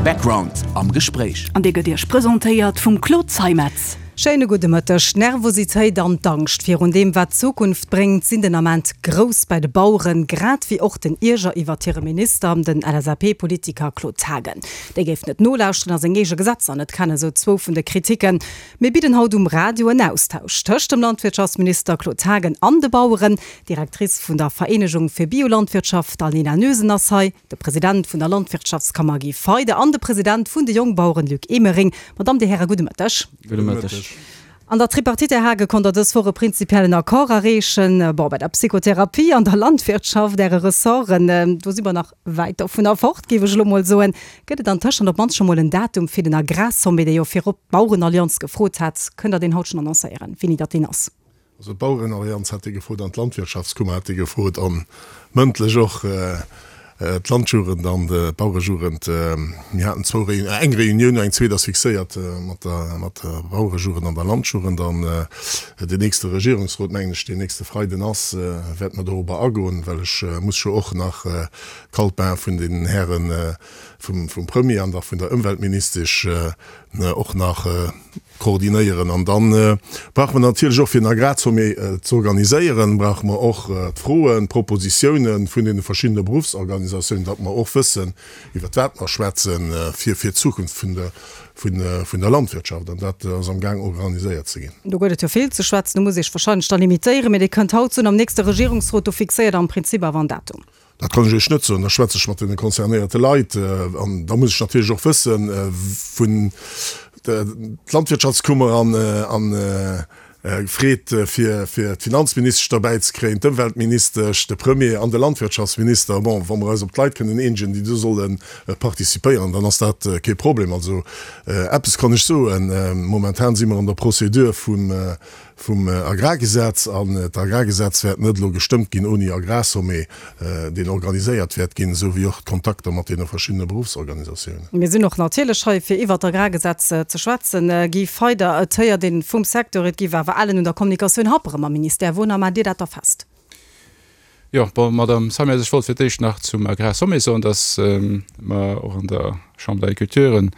Background am Gespréich. An dee gëtt Iech presentéiert vum Claude Zeimetz. Schéine gudde Mëtteg. D'Nervositéit an d'Angscht virun deem, wat d'Zukunft bréngt, sinn den Ament grouss bei de Baueren, grad wéi och den Ierger iwwert hire Minister, den LSAP-Politiker Claude Haagen. Dee géif net nolauschteren a seng eege Gesetzer net kennen, sou zwou vun de Kritiken. Mir bidden haut um Radio en Austausch tëscht dem Landwirtschaftsminister Claude Haagen an de Baueren. D'Directrice vun der Vereenegung fir Biolandwirtschaft Alina Noesen ass hei, de President vun der Landwirtschaftskammer Guy Feyder an de President vun de Jongbaueren Luc Emering. Madame, Dir Häre, gudde Mëtteg. Gudde Mëtteg. An der Tripartite, Här Haagen, konnt Der dës Woch e prinzipiellen Accord erreechen. Bon, bei der Psychotherapie an der Landwirtschaft, Äre Ressorten, do si mer nach wäit dovunner fort, géif ech elo mol soen. Gëtt et antëschent op d'mannst scho mol en Datum fir den Agrarsommet, dee jo virop d'Bauerenallianz gefrot hat? Kënnt Der deen haut schonn annoncéieren, wéini datt deen ass? Also d'Bauerenallianz hat dee gefrot an d'Landwirtschaftskummer hat dee gefrot a mëndlech och d'Landjugend an d'Bauerejugend. Mir haten zwou Réun, eng Reunioun, eng zweet ass fixéiert mat der, mat der Bauerejugend an der Landjugend. An deen nächste Regierungsrot, mengen ech, deen nächste Freiden ass, wäerte mer dorobber agoen, well ech muss jo och nach d'Kaltbain vun den Hären vum, vum Premier an da vun der Ëmweltministesch och nach koordinéieren. An da brauche mer natierlech och, fir en Agrarsommet z'organiséieren, brauche mer och d'Froen, d'Propositiounen vun deene verschiddene Beruffsorganisatiounen, datt mer och wëssen, iwwert wat mer schwätzen, fir fir d'Zukunft vun der, vun der Landwirtschaft. An dat ass amgaang organiséiert ze ginn. Do gëtt et jo vill ze schwätzen. Do muss ee sech wahrscheinlech da limitéieren. Mee Dir kënnt haut soen, am nächste Regierungsrot, do fixéiert Der am Prinzip awer en Datum. Dat kann ech Iech net soen. Da schwätze ech mat deene concernéierte Leit. An da muss ech natierlech och wëssen, vun d'Landwirtschaftskummer an freet, fir d'Finanzministesch derbäi ze kréien, d'Ëmweltministesch, de Premier an de Landwirtschaftsminister. Bon, wa mer eis op d'Leit kënnen eenegen, déi do solle participéieren, dann ass dat kee Problem. Also eppes kann ech soen, Momentan si mer an der Procédure vum vum Agrargesetz, an d'Agrargesetz wäert net elo gestëmmt ginn ouni Agrarsommet, deen organiséiert wäert ginn, esou wéi och d'Kontakter mat deene verschiddene Beruffsorganisatiounen. Mir sinn och natierlech hei, fir iwwert d'Agrargesetz ze schwätzen. Guy Feyder, Et héiert een vum Secteur, et géif awer ellen un der Kommunikatioun happere mam Ministère. Wounner maacht Dir dat da fest? Jo, bon, Madame Samias, ech wollt fir d'éischt nach zum Agrarsommet soen, dass mer och an der Chambre d'Agriculture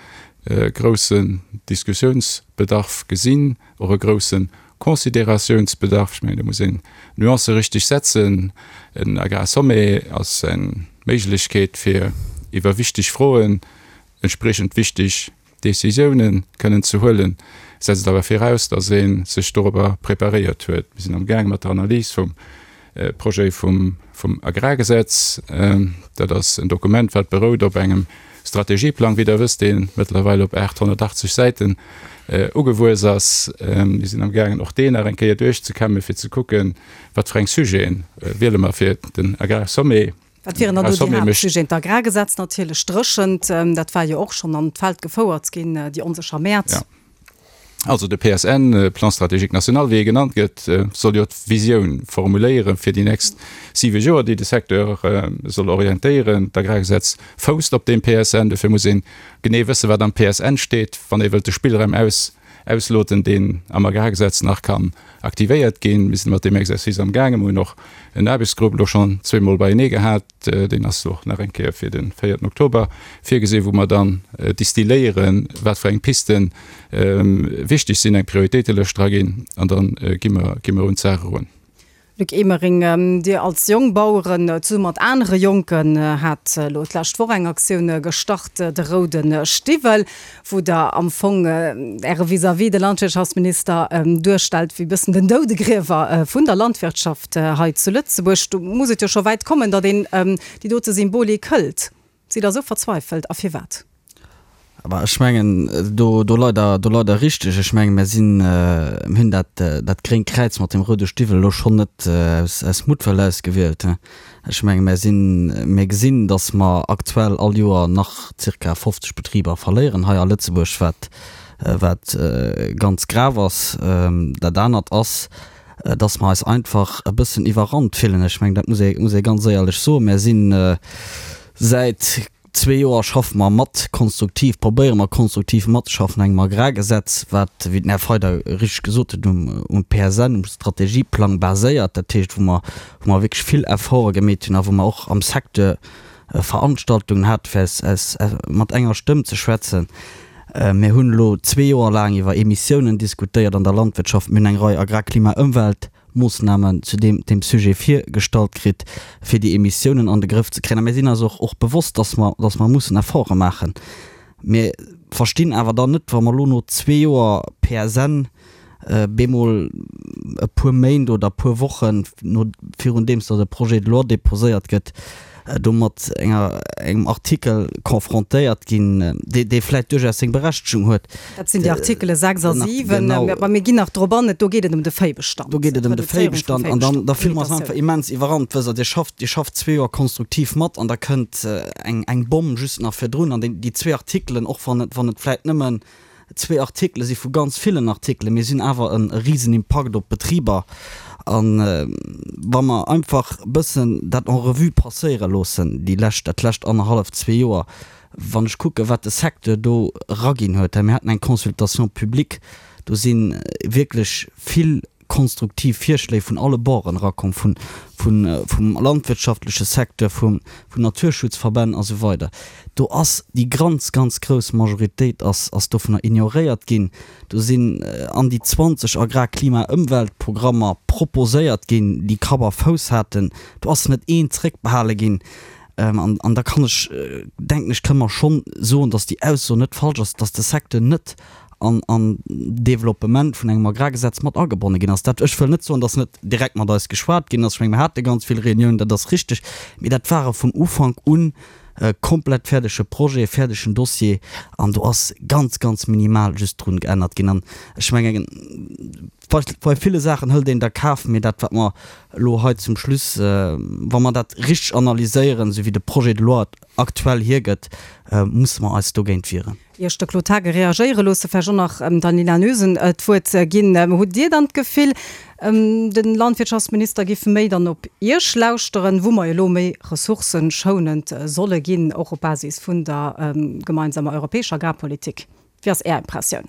e groussen Diskussionsbedarf gesinn, och e grousse Considérationsbedarf. Ech mengen, do muss een d'Nuancë richtig setzen. En Agrarsommet ass eng Méiglechkeet, fir iwwer wichteg Froen entspriechend wichteg Décisiounen kënnen ze huelen, setzt awer viraus, datt ee sech dorobber preparéiert huet. Mir sinn amgaange mat der Analys vum Projet vum Agrargesetz. Dat ass en Dokument, wat berout op engem Strategieplang, wéi Der wësst, dee mëttlerweil op 880 Säiten ugewuess ass. Mir sinn amgaangen, och deen nach eng Kéier duerchzekämmen, fir ze kucken, wat fir eng Sujete wiele mer fir den Agrarsommet. Wat wieren dann do déi Haaptsujeten? D'Agrargesetz natierlech, d'Dréchent, dat war jo och schonn an d'Feld gefouert ginn, déi onsécher Mäert. Jo. Also de PSN, Plan stratégique national, wéi e genannt gëtt, soll jo d'Visioun formuléiere fir déi nächst siwe Joer, déi de Secteur soll orientéieren. D'Agrargesetz fousst op deem PSN. Dofir muss ee genee wëssen, wat am PSN steet, wann ee wëllt de Spillraum aus ausloten, deen am Agrargesetz nach kann aktivéiert ginn. Mir sinn mat deem Exercice am gaangen. Mir hunn och en Aarbechtsgrupp elo schonn zweemol beienee gehat. Deen ass och nach eng Kéier fir de véierten Oktober virgesinn, wou mer dann distilléieren, wat fir eng Pisten wichteg sinn, eng Prioritéitelëscht draginn an da gi mer, gi mer un d'Saach erun. Luc Emering, Dir als Jongbaueren zesumme mat anere Jonken hat elo d'lescht Woch eng Aktioun gestart, de roude Stiwwel, wou Der am Fong Äre Vis-à-vis, de Landwirtschaftsminister, duerstellt wéi bëssen den Doudegriewer vun der Landwirtschaft hei zu Lëtzebuerg. Do muss et jo scho wäit kommen, datt een déi dote Symbolik hëlt. Sidd Der esou verzweifelt a firwat? Bah, ech mengen, do, do leit Der, do leit Der richteg. Ech mengen, mir sinn, mir hunn dat, dat gréngt Kräiz mat dem roude Stiwwel elo schonn net aus, aus Muttwëll ausgewielt. Ech mengen, mir sinn, mir gesinn, datt mer aktuell all Joer nach zirka 50 Betriber verléieren hei a Lëtzebuerg, wat, wat ganz grav ass. Dat anert ass, datt mer eis einfach e bëssen iwwerrannt fillen. Ech mengen, dat muss ee, muss ee ganz éierlech soen. Mir sinn säit zwee Joer schaffe mer mat konstruktiv, probéiere mer konstruktiv matzeschaffen un engem Agrargesetz, wat, wéi den Här Feyder richteg gesot huet, um, um PSN, um Strategieplang baséiert. Dat heescht, wou mer, wou mer wierklech vill Efforte gemeet hunn a wou mer och am Secteur. Veranstaltungen hat, fir aus, aus, mat enger Stëmm ze schwätzen. Mir hunn elo zwee Joer laang iwwer Emissiounen diskutéiert an der Landwirtschaft. Mir hunn eng Rei Agrar-, Klima-, Ëmweltmoossnamen zu deem, deem Sujet virgestallt kritt, fir déi Emissiounen an de Grëff ze kréien. A mir sinn eis och, och bewosst, dass mer, dass mer mussen Efforte maachen. Mir verstinn awer dann net, wa mer elo no zwee Joer PSN bemol e puer Méint oder e puer Wochen no virun deems datt e Projet de loi déposéiert gëtt, do mat enger engem Artikel confrontéiert ginn, dee dee vläicht duerchaus seng Berechtegung huet. Dat sinn déi Artikele 6 a 7, mä mir ginn nach drop an. Do geet et ëm de Véibestand. Do geet et ëm de Véibestand an dann da fille mer eis einfach immens iwwerrannt. Wësst Der, Dir schafft, Dir schafft zwee Joer konstruktiv mat an da kënnt eng eng Bomm just nach virdrun an déi déi zwee Artikelen, och wann et wann et vläicht nëmmen zwee Artikele si vu ganz villen Artikelen, mee si hunn awer e risen Impakt op d'Betriber. A wa mer einfach e bëssen dat en revue passéiere loossen, déi lescht, dat lescht annerhalleft, zwee Joer, wann ech kucken, wat de Secteur do eraginn huet, mir haten eng Consultation publique, do si wierklech vill konstruktiv Virschléi vun alle Borden erakomm, vun, vun, vum landwirtschaftleche Secteur, vum, vun Naturschutzverbänn a sou weider. Do ass déi ganz, ganz grouss Majoritéit ass, ass dovunner ignoréiert ginn. Do sinn an déi 20 Agrar-, Klima-, Ëmweltprogrammer proposéiert ginn, déi Kapp a Fouss haten. Do ass net een zréckbehale ginn. An, an da kann ech, denken ech, kënne mer schonn soen, dass déi Ausso net falsch ass, dass de Secteur net an an d'Developpement vun engem Agrargesetz mat agebonne ginn ass. Dat, ech wëll net soen, dass net direkt mat eis geschwat ginn ass. Ech menge mir hate ganz vill Reuniounen, dat ass richteg, mee dat ware vun Ufank un komplett fäerdege Projet, fäerdegen Dossier an do ass ganz, ganz minimal just drun geännert ginn. An ech mengen, bei bei ville Saachen hëlt een der Kaf, mee dat wat mer elo hei zum Schluss, wa mer dat richteg analyséieren, esou wéi de Projet de loi et aktuell hiergëtt, musse mer eis dogéint wieren. Ier ech de Claude Haagen reagéiere loosse, vläicht och nach der Nina Noesen d'Wuert ginn. Hutt Dir dann d'Gefill, de Landwirtschaftsminister giff méi dann op Iech lauschteren, wou mer elo méi ressourcëschounend solle ginn, och op Basis vun der gemeinsamer europäescher Agrarpolitik? Wéi ass Är Impressioun?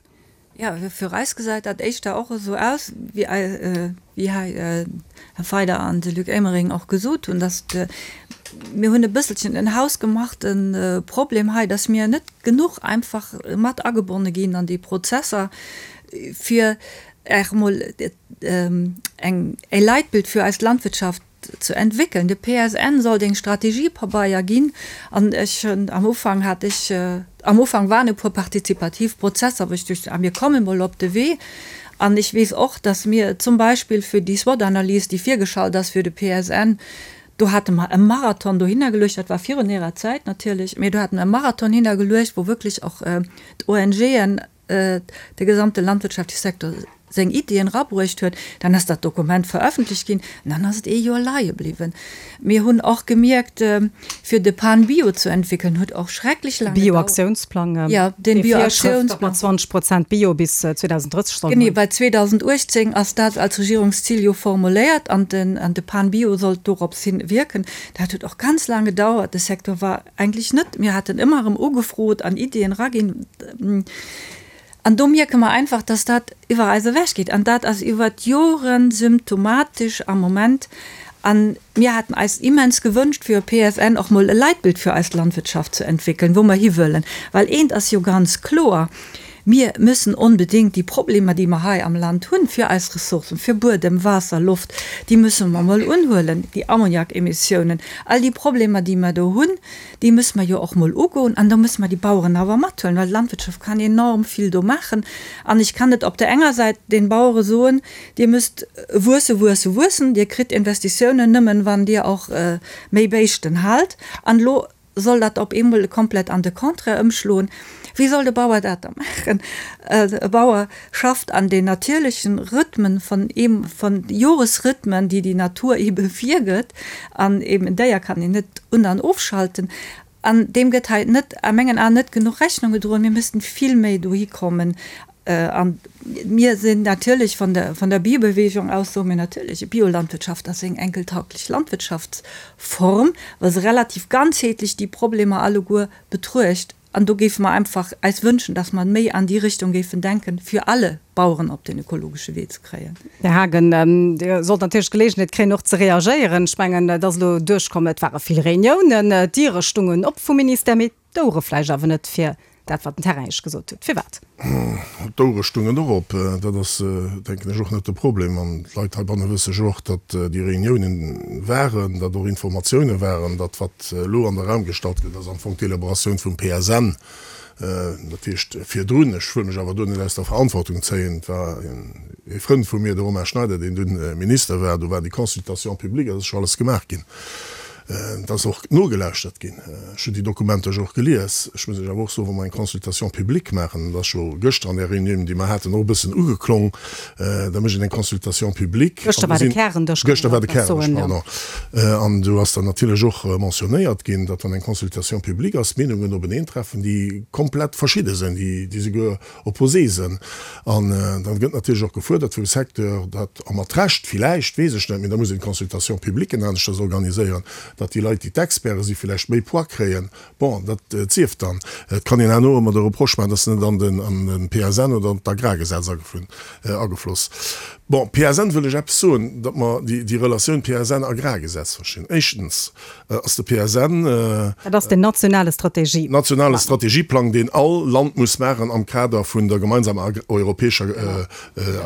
Jo, fir eis gesäit dat éischter och esou aus, wéi hei Här Feider an de Luc Emering och gesot hunn, datt mir hunn e bësselchen en hausgemachte Problem hei, datt mir net genuch einfach mat agebonne ginn an déi Prozesser, fir och emol eng e Leitbild fir eis Landwirtschaft ze entwéckeln. De PSN sollt eng Strategiepabeier ginn an ech hunn am Ufank hat ech, am Ufank waren e puer partizipativ Prozesser, wou ech duecht, ah mir komme mol op de Wee. An ech weess och, datt mir zum Beispill fir déi SWOT-Analys, déi virgeschalt ass fir de PSN, do hate mer e Marathon dohinner geluecht, dat war virun Ärer Zäit natierlech, mee do hate mer e Marathon hinnergeluecht, wou wierklech och d'ONGen, de gesamte landwirtschaftleche Secteur seng Iddien erabruecht huet, dann ass dat Dokument veröffentlicht ginn an dann ass et ee Joer leie bliwwen. Mir hunn och gemierkt, fir de PAN Bio ze entwéckelen, huet och schrecklech laang gedauert. Bioaktiounsplang, Jo, den Bioaktiounsplang. Datt mer 20 Prozent Bio bis 2030 sollen hunn. Genee, well 2018 ass dat als Regierungszil jo formuléiert an de PAN Bio sollt dorops hin wierken. Dat huet och ganz laang gedauert. De Secteur war Eigentlech net. Mir haten ëmmer erëm ugefrot an Iddien eraginn. An do mierke mer einfach, dass dat iwwer eis ewechgeet. An dat ass iwwer d'Jore symptomatesch am Moment. A mir haten eis immens gewënscht, fir e PSN och mol e Leitbild fir eis Landwirtschaft ze entwéckelen, wou mer hiwëllen. Well eent ass jo ganz kloer, Mir müssen onbedéngt déi Problemer, déi mer hei am Land hunn, fir eis Ressourcen, fir Buedem, Waasser, Loft, déi müsse mer emol unhuelen, déi Ammoniakemissiounen, all déi Problemer, déi mer do hunn, déi müsse mer jo och emol ugoen. An do müsse mer déi Baueren awer mathuelen, well d'Landwirtschaft kann enorm vill do maachen. An ech kann net op där enger Säit den Bauere soen, Dir müsst wuesse, wuesse, wuessen, Dir kritt Investitiounen nëmmen, wann Dir och méi Béischten haalt. An elo soll dat op eemol komplett an de Contraire ëmschloen. Wéi soll de Bauer dat da maachen? E Bauer schafft an den natierlechen Rhythmen von eem, von Joresrhythmen, déi déi Natur eebe virgëtt, an eeben en Déier kann een net un an ofschalten. An deem gëtt hei net, a mengen Aen, net genuch Rechnung gedroen. Mir missten vill méi dohi kommen. An mir sinn natierlech vun der, vun der Biobewegung aus, soe mir natierlech, Biolandwirtschaft ass eng enkeltauglech Landwirtschaftsform, well se relativ ganzheetlech déi Problemer alleguer betruecht. An do géife mer einfach eis wënschen, dass mer méi an déi Richtung géifen denken, fir alle Baueren op den ökologesche Wee ze kréien. Här Haagen, Dir sollt natierlech d'Geleegenheet kréien, och ze reagéieren. Ech mengen, et ass elo duerchkomm, et ware vill Reuniounen, d'Diere stungen op vum Ministère, mee d'Ouere vläicht awer net fir dat, wat den Terrain Iech gesot huet. Firwat? D'Ouere stungen och op. Dat ass, denken ech, och net de Problem. An d'Leit heibanne wësse jo och, datt déi Reuniounen waren, datt och Informatioune waren, datt wat elo an de Raum gestallt gëtt, ass am Fong d'Elaboratioun vum PSN. Dat heescht virdrun, ech wëll mech awer do net aus der Verantwortung zéien, et war ee Frënd vu mir, de Romain Schneider, deen dunn Minister war, do war déi Consultation publique, dat ass scho alles gemaach ginn. Et ass och nogelauschtert ginn. Ech hunn déi Dokumenter jo och gelies. Ech muss lech awer och soen, wa mer eng Consultation publique maachen, dat ass jo gëschter an där Reunioun, déi mer haten, och e bëssen ugeklong, da mécht een eng Consultation publique. Gëschter war de Kärendësch, Gëschter war de Kärendësch, pardon. An do ass dann natierlech och mentionnéiert ginn, datt wann eng Consultation publique ass, d'Meenungen openeentreffen, déi komplett verschidde sinn, déi souguer opposé sinn. An dann gëtt natierlech och gefuerdert vum Secteur, datt, a mat Recht villäicht, weess ech net, mee da muss een d'Consultation publique aneschters organiséieren, datt déi Leit, déi d'Experte si villäicht méi Poids kréien. Bon, dat sief dann. Et kann een herno ëmmer de Reproche maachen, datt se net an den an den PSN oder an d'Agrargesetz agefloss. Bon, PSN wëll ech eppes soen, datt mer déi déi Relatioun PSN-Agrargesetz verstinn. Éischtens ass de PSN. Dat ass den nationale Strategieplang. Nationale Strategieplang, deen all Land muss maachen am Kader vun der gemeinsamer europäescher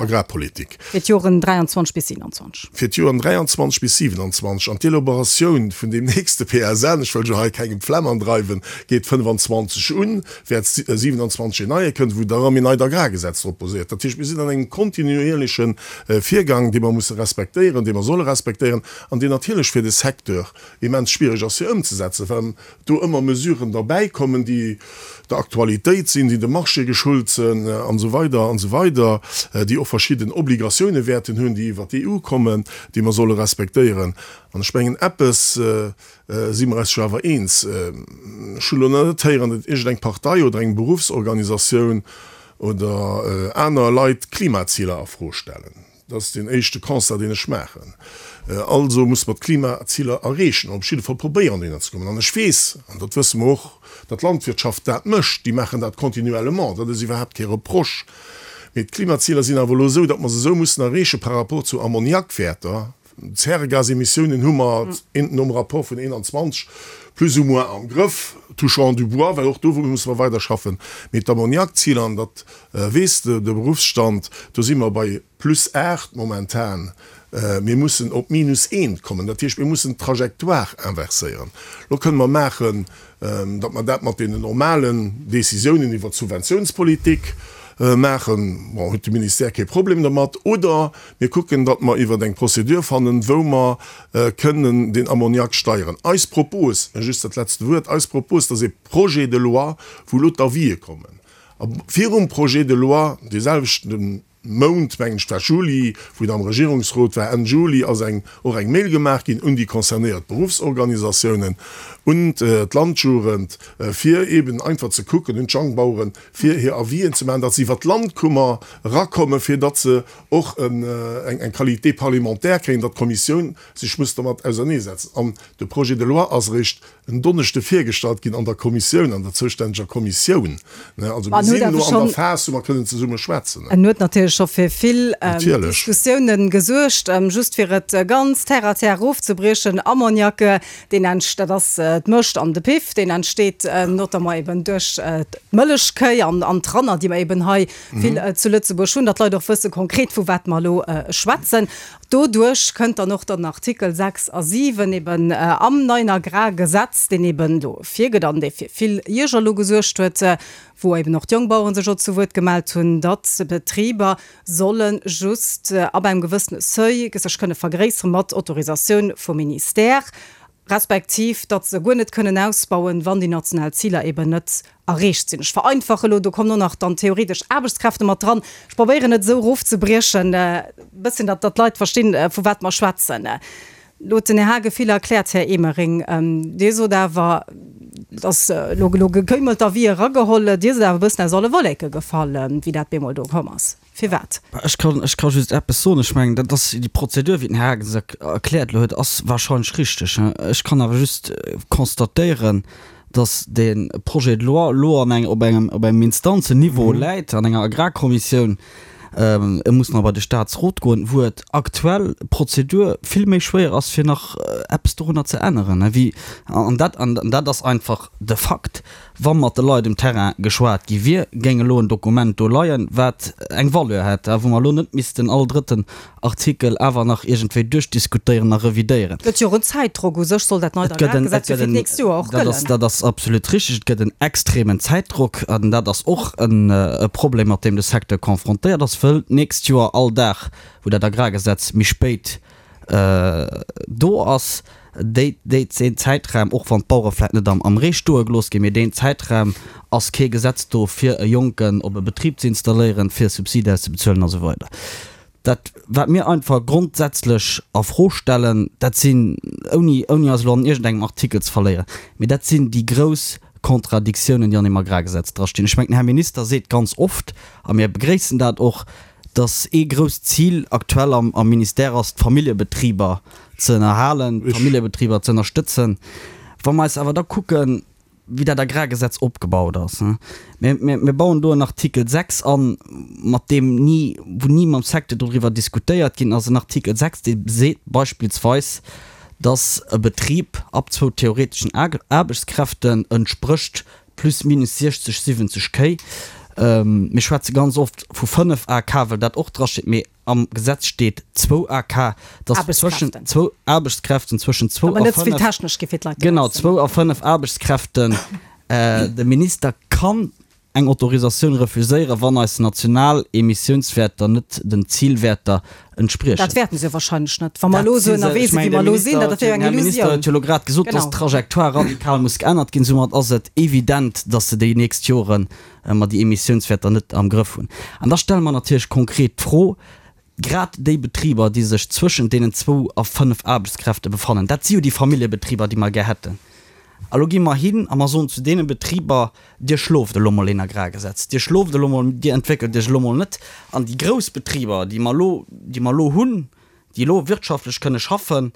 Agrarpolitik. Fir d'Joren 23 bis 27. Fir d'Joren 23 bis 27. An d'Elaboratioun vun deem nächste PSN, ech wëll jo hei kengem d'Flemm andreiwen, geet 25 un, wäert 27 een neie kënnen, wou da erëm een neit Agrargesetz drop baséiert. Dat heescht, mir sinn an engem kontinuierleche Virgang, dee mer musse respektéieren, dee mer solle respektéieren an deen natierlech fir de Secteur immens schwierig ass fir ëmzesetzen, well do ëmmer Mesuren derbäikommen, déi der Aktualitéit sinn, déi dem Marché geschult sinn an esou weider an esou weider, déi och verschidden Obligatioune wäerten hunn, déi iwwer d'EU kommen, déi mer solle respektéieren. An ech mengen, eppes si mer eis jo awer eens, ech hunn elo nach net héieren, datt iergendeng Partei oder eng Beruffsorganisatioun oder aner Leit d'Klimaziler a Fro stellen. Dat ass deen éischte Constat, deen ech maachen. Also musse mer d'Klimaziler erreechen, op jidde Fall probéieren, dohinner ze kommen. An ech weess, an dat wësse mer och, datt d'Landwirtschaft dat mécht. Déi maachen dat continuellement. Dat ass iwwerhaapt kee Reproche. Mee d'Klimaziler sinn awer elo esou, datt mer se esou mussen erreeche par rapport zu Ammoniakwäerter. D'Zäregasemissiounen hu mer nom Rapport vun 21 plus ou moins am Grëff, touchant du bois, well och do musse mer weiderschaffen. Mee d'Ammoniakziler, an dat weess de Beruffsstand, do si mer bei plus 8 momentan, mir mussen op minus eent kommen. Dat heescht, mir mussen d'Trajectoire inverséieren. Lo kënne mer maachen, datt mer dat mat deenen normalen Décisiounen iwwert d'Subventiounspolitik maachen, bon, huet de Ministère kee Problem dermat, oder mir kucken, datt mer iwwert eng Procédure fannen, wou mer kënnen den Ammoniak steieren. Eis Propos, just dat letzte Wuert, eis Propos, dat ass ee Projet de loi, wou elo d'Avisë kommen, a virum Projet de loi, deeselwechten Mount, mengen ech, war Juli, wou et am Regierungsrot war, Enn Juli ass eng, och eng Mail gemaach ginn un déi concernéiert Beruffsorganisatiounen, un d'Landjugend, fir eeben einfach ze kucken, un d'Jongbaueren, fir hir Avisen ze maachen, datt se iwwer d'Landkummer erakommen, fir datt se och eng, eng Qualité parlementaire kréien, datt d'Kommissioun sech muss dermat auserneesetzen. An de Projet de loi ass eréischt en Donneschde virgestallt ginn an der Kommissioun, an der zoustänneger Kommissioun. Also mir sinn elo an der Phas, wou mer kënnen zesumme schwätzen. En huet natierlech scho fir vill Diskussiounen gesuergt. Just fir et ganz terre à terre erofzebriechen, Ammoniak, deen entst, dat ass d'Mëscht an de Piff, deen entsteet notamment eben duerch d'Mëllechkéi an d'Ranner, déi mer eben hei vill zu Lëtzebuerg hunn, datt d'Leit och wësse konkret, vu wat mer elo schwätzen. Doduerch kënnt dann och dann Artikel 6 a 7 eben am neien Agrargesetz, deen eben do virgëtt an dee fir vill Ierger elo gesuergt huet, wou eben och d'Jongbaueren sech och zu Wuert gemellt hunn, datt Betriber solle just ab engem gewëssene Seuil sech kënne vergréissere mat Autorisatioun vum Ministère, respektiv datt se guer net kënnen ausbauen, wann déi national Ziler eben net erreecht sinn. Ech vereinfache elo, do kommen och nach dann theoretesch Aarbechtskräfte mat dran. Ech probéieren et esou erofzebriechen e bësschen, datt d'Leit verstinn, vu wat mer schwätzen. Elo huet den Här Haagen vill erkläert, Här Emering. Dir sot awer, et ass elo elo gekéimelt a wéi erageholl, Dir sidd awer e bëssen aus alle Wolleke gefall, wéi dat bemol do komm ass. Firwat? Ech kann, ech ka just eppes soen. Ech mengen, dat ass déi Prozedur, wéi den Här Haagen se erkläert elo huet, ass wahrscheinlech richteg. Ech kann awer just constatéieren, Dass dee Projet de loi elo an eng, op engem, op engem Instanzenniveau läit, an enger Agrarkommissioun, e muss nach bei de Statsrot goen, wou et aktuell d'Prozedur vill méi schwéier ass, fir nach eppes dorunner ze änneren, wéi, an dat, an dat ass einfach de Fakt. Wa mat de Leit um Terrain geschwat gi wier, géing elo en Dokument do leien, wat eng Valeur hätt, a wou mer elo net missten all drëtten Artikel awer nach iergendwéi duerchdiskutéieren a revidéieren. Et gëtt jo och en Zäitdrock. U sech soll dat neit Agrargesetz jo fir d'nächst Joer och gëllen. Dat ass absolut richtig. Et gëtt en extremen Zäitdrock an dat ass och e Problem, mat deem de Secteur confrontéiert ass, wëll d'nächst Joer all Dag, wou dat Agrargesetz méi spéit do ass déi, déi, deen Zäitraum, och wann d'Bauere vläicht net am, am Ree stoe gelooss ginn, mee deen Zäitraum ass kee Gesetz do, fir e Jonken op e Betrib ze installéieren, fir Subside auszebezuelen a sou weider. Dat, wat mir einfach grondsätzlech a Fro stellen, dat sinn, ouni, ouni eis elo an iergendengem Artikel ze verléieren, mee dat sinn déi grouss Kontradiktiounen, déi an deem Agrargesetz drastinn. Ech mengen, den Här Minister seet ganz oft, a mir begréissen dat och, dass ee grousst Zil aktuell am am Ministère ass, d'Familljebetriber ze ënnerhalen, d'Familljebetriber ze ënnerstëtzen. Wa mer eis awer da kucken, wéi dat Agrargesetz opgebaut ass, mir, mir, mir bauen do en Artikel 6 an, mat deem ni, wou ni mam Secteur doriwwer diskutéiert ginn ass, en Artikel 6, dee seet beispillsweis, dass e Betrib ab zwou theoreteschen Aarbechtskräften entsprécht Plus minus 60, 70 Kéi. Mir schwätze ganz oft vu 5 AK, well dat och drasteet, mee am Gesetz steet zwou AK, dass zwëschen zwou Aarbechtskräften, zwëschen zwou a fënnef, genau, zwou a fënnef Aarbechtskräften, de Minister kann eng Autorisatioun refuséieren, wann eis national Emissiounswäerter net den Zilwäerter entspriechen. Dat wäerten se jo wahrscheinlech net, wa mer elo esou ënnerwee sinn, wéi mer elo sinn. Dat wier jo eng Illusioun. Den Här Minister huet jo elo grad gesot, dass d'Trajectoire radikal muss geännert ginn. Soumat ass et evident, dass se déi nächst Jore mer déi Emissiounswäerter net am Grëff hunn. An da stelle mer natierlech konkret d'Fro, grad déi Betriber, déi sech zwëschent deenen zwou a fënnf Aarbechtskräfte befannen, dat si jo déi Familljebetriber, déi mer gär hätten. A lo gi mer hin a mer soen zu deene Betriber, Dir schloft elo mol een Agrargesetz, Dir schloft elo mol, Dir entwéckelt Iech elo mol net. An déi grouss Betriber, déi mer elo, déi mer elo hunn, déi elo wirtschaftlech kënne schaffen,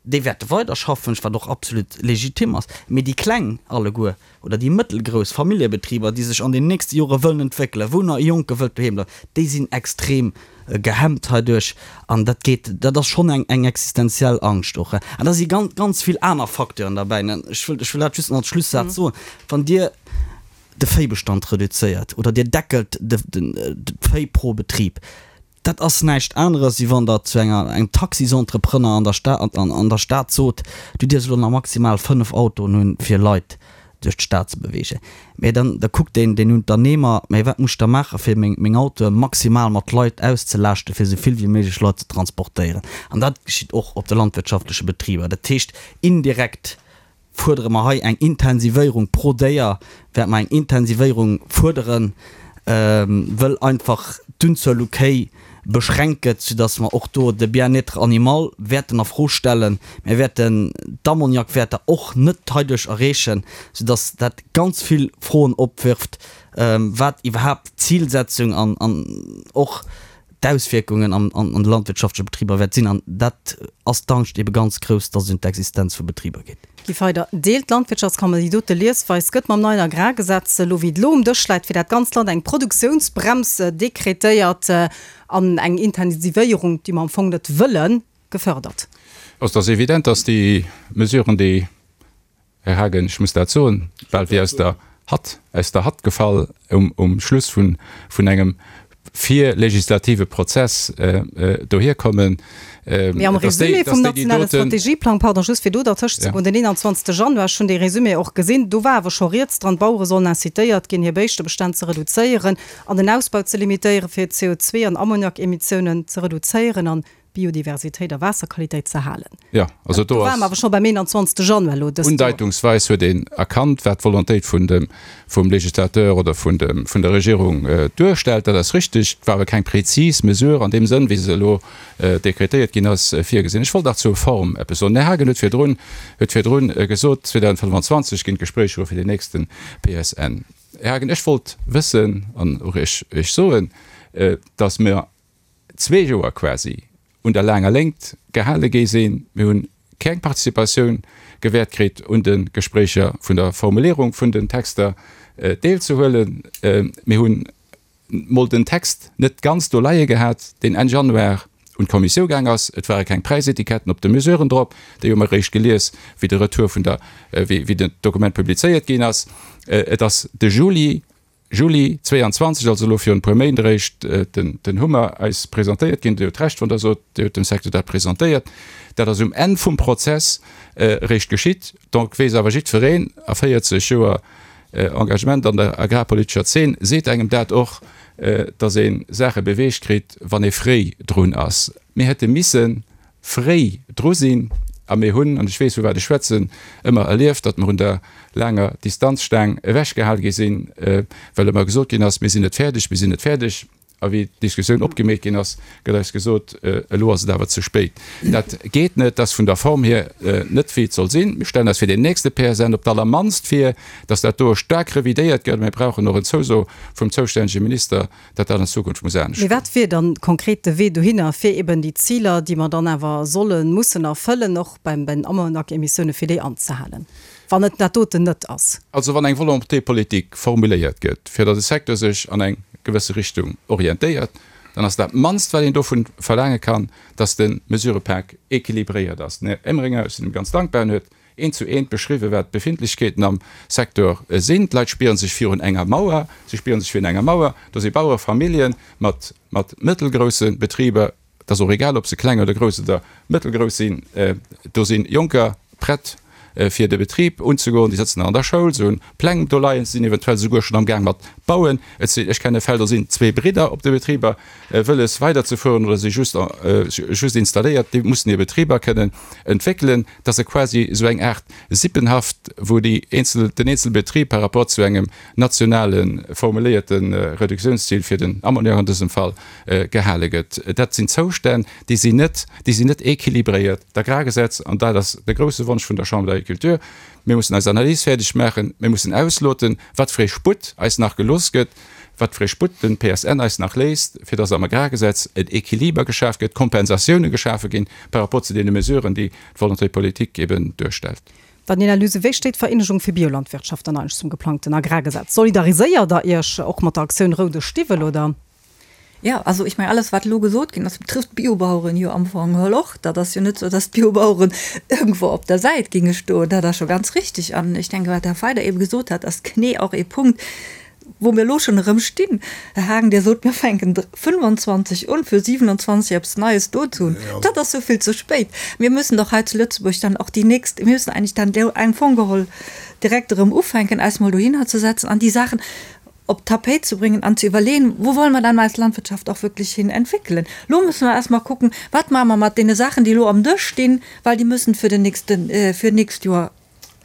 déi wäerte weider schaffen, wat och absolut legitim ass. Mee déi kleng alleguer oder déi mëttelgrouss Familljebetriber, déi sech an den nächste Jore wëllen entwéckelen, wou nach e Jonke wëllt doheem bleiwen, déi sinn extrem gehemmt heiduerch an dat geet, dat ass schonn eng eng existenziell Angscht och. An da si ganz, ganz vill aner Facteuren derbäi. Ech wëll, ech wëll dat just nach als Schlussaz soen, Wann Dir de Véibestand reduzéiert oder Dir deckelt de, den, d'Véi pro Betrib, dat ass näischt aneres, wéi wann Der zu enger, engem Taxisentrepreneur an der Stad, an, an der Stad sot, Du dierfs elo nach maximal 5 Autoen hunn, fir Leit duerch d'Stad ze beweegen. Mä dann, da kuckt deen, deen Unternehmer, Mä wat muss ech da maachen, fir meng, meng Autoe maximal mat Leit auszelaaschten, fir esou vill wéi méiglech Leit ze transportéieren? An dat geschitt och op de landwirtschaftleche Betriber. Dat heescht, indirekt fuerdere mer hei eng Intensivéierung pro Déier, wäerte mer eng Intensivéierung fuerderen, wëll einfach d'Unzuel u Kéi beschränkt gëtt, soudass mer och do de Bien-être animal wäerten a Fro stellen. Mir wäerten d'Ammoniakwäerter och net heiduerch erreechen, soudass dat ganz vill Froen opwirft, wat iwwerhaapt d'Zilsetzung an och d'Auswierkungen an de landwirtschaftleche Betriber wäert sinn. An dat ass d'Angscht ebe ganz grouss, dass et un d'Existenz vu Betriber geet. Guy Feyder, Deelt d'Landwirtschaftskammer déi dote Liesweis? Gëtt mam neien Agrargesetz, elo wéi et elo um Dësch läit, fir dat ganzt Land eng Produktiounsbrems dekretéiert an eng Intensivéierung, déi mer am Fong net wëllen, gefördert? Also et ass evident, dass déi Mesuren, déi Här Haagen, ech muss dat soen, bal wéi aus der Hatt, aus der Hatt gefall um Schluss vun engem virlegislative Prozess dohierkommen. Mee am Résumé vum nationale Strategieplang, pardon, just fir do dertëscht ze goen, den 21. Januar, ech hunn dee Résumé och gesinn, do war awer scho rieds dran, d'Bauere sollen incitéiert ginn, hir Béischtebestänn ze reduzéieren an den Ausbau ze limitéieren, fir CO2 an Ammoniakemissionen ze reduzéieren an Biodiversitéit a Waasserqualitéit ze halen. Jo, also do ass. Do ware mer awer scho beim 21. Januar elo dëst Joer. Undeitungsweis huet een erkannt, wat d'Volontéit vun dem, vum Législateur oder vun dem, vun der Regierung duerstellt. Dat ass richtig. Et war awer keng prezis Mesure an deem Sënn, wéi se elo dekretéiert ginn ass, virgesinn. Ech wollt nach zur Form eppes soen. Den Här Haagen huet virdrun, huet virdrun gesot, 2025 ginn d'Gespréicher u fir den nächste PSN. Här Haagen, ech wollt wëssen an och Iech, Iech soen, dass mer, zwee Joer quasi un der laanger Léngt gehale gi sinn. Mir hu. keng Participatioun gewäert kritt, un de Gespréicher vun der Formulierung vun den Texter deelzehuelen. Mir hunn mol den Text net ganz do leie gehat, deen Enn Januar un d'Kommissiou gaang ass. Et ware keng Präisetiketten op de Mesuren drop, déi hu mer eréischt gelies, wéi de Retour vun der, wéi den Dokument publizéiert ginn ass. Et ass de Juli, Juli 22, also elo virun e puer Méint eréischt, den Hummer eis presentéiert ginn. Dir hutt Recht, wann Der sot, Dir hutt dem Secteur dat presentéiert. Dat ass um Enn vum Prozess eréischt geschitt. Donc weess awer jiddwereen, a 40 Joer Engagement an der agrarpolitescher Zeen seet engem dat och, datt ee Saache beweegt kritt, wann ee fréi drun ass. Mir hätte misse fréi dru sinn a mir hunn, an ech weess vu wat ech schwätzen, ëmmer erlieft, datt mer un der laanger Distanzstaang ewechgehal gi sinn, well ëmmer gesot ginn ass, mir sinn net fäerdeg, mir sinn net fäerdeg. A wéi d'Diskussioun opgemeet ginn ass, gëtt eis gesot, elo ass et awer ze spéit. Dat geet net, dat ass vun der Form hier net wéi et soll sinn. Mir stellen eis fir deen nächste PSN op d'allermannst vir, datt dat do staark revidéiert gëtt. Mir brauchen och en Zouso vum zoustännege Minister, datt dat an Zukunft muss anescht Mee goen. wat wier dann konkret de Wee dohinner, fir eben déi Ziler, déi mer dann awer sollen, mussen erfëllen, och beim bei den Ammoniakemissioune, fir déi anzehalen, wann et dat doten net ass? Also wann eng Volonté politique formuléiert gëtt, fir datt e Secteur sech an eng gewësse Richtung orientéiert, dann ass dat mannst, wat een dovun verlaange kann, datt de Mesurëpak équilibréiert ass. Den Här Emringer, ech sinn him ganz dankbar, en huet eent zu eent beschriwwen, wat d'Befindlechkeeten am Secteur sinn. D'Leit spiere sech virun enger Mauer, si spiere sech virun enger Mauer. Do si Bauerefamillje mat mat mëttelgrousse Betriber, et ass och egal, ob se kleng oder grouss oder mëttelgrouss sinn, do si Jonker prett fir de Betrib unzegoen, déi sëtzen nach an der Schoul, se hunn Pläng do leien, se sinn eventuell souguer schonn am Gaang mat bauen. Et sinn, ech kenne Fäll, do sinn zwee Bridder op de Betriber wëlles weiderzefueren oder si just just installéiert, déi mussen hir Betriber kënnen entwéckelen. Et ass e quasi esou eng Aart Sippenhaft, wou déi eenzel, den eenzele Betrib par rapport zu engem nationale formuléierte Reduktiounsziel fir den Ammoniak an dësem Fall gehale gëtt. Dat sinn Zoustänn, déi sinn net, déi sinn net équilibréiert. D'Agrargesetz, an dat ass de grouse Wonsch vun der Chambre d'Agriculture, mir mussen eis Analys fäerdeg maachen, mir mussen ausloten, wat fir ee Sputt eis nach gelooss gëtt, wat fir ee Sputt den PSN eis nach léisst, fir dass am Agrargesetz en Équiliber geschaf gëtt, Kompensatioune geschafe ginn par rapport zu deene Mesuren, déi d'Volonté politique eben duerstellt. Daniela Luse, Wéi steet d'Vereenegung fir Biolandwirtschaft dann eigentlech zum geplangten Agrargesetz? Solidariséiert der Iech och mat der Aktioun Roude Stiwwel, oder? Jo, also ech mengen, alles wat elo gesot ginn ass, betrifft d'Biobaueren jo am Fong geholl och. Dat ass jo net esou, datt d'Biobaueren iergendwou op der Säit géinge stoen. Dat ass scho ganz richtig. An ech denke, wat de Här Feider eebe gesot hat, ass genee och ee Punkt, wou mir elo schonn erëm stinn. Här Haagen, Dir sot, mir fänken 25 un, fir 27 eppes Neies do ze hunn. Dat ass esou vill ze spéit. Mir müssen doch hei zu Lëtzebuerg dann och déi nächst, mir müssen eigentlich dann am Fong geholl direkt erëm ufänken, eis mol dohinner ze setzen an déi Saachen op d'Tapéit ze bréngen an ze iwwerleeën, wou wolle mer dann eis Landwirtschaft och wierklech hin entwéckelen. Elo musse mer erst mol kucken, wat maache mer mat deene Saachen, déi elo am Dësch stinn, well déi müssen fir den nächsten, fir d'nächst Joer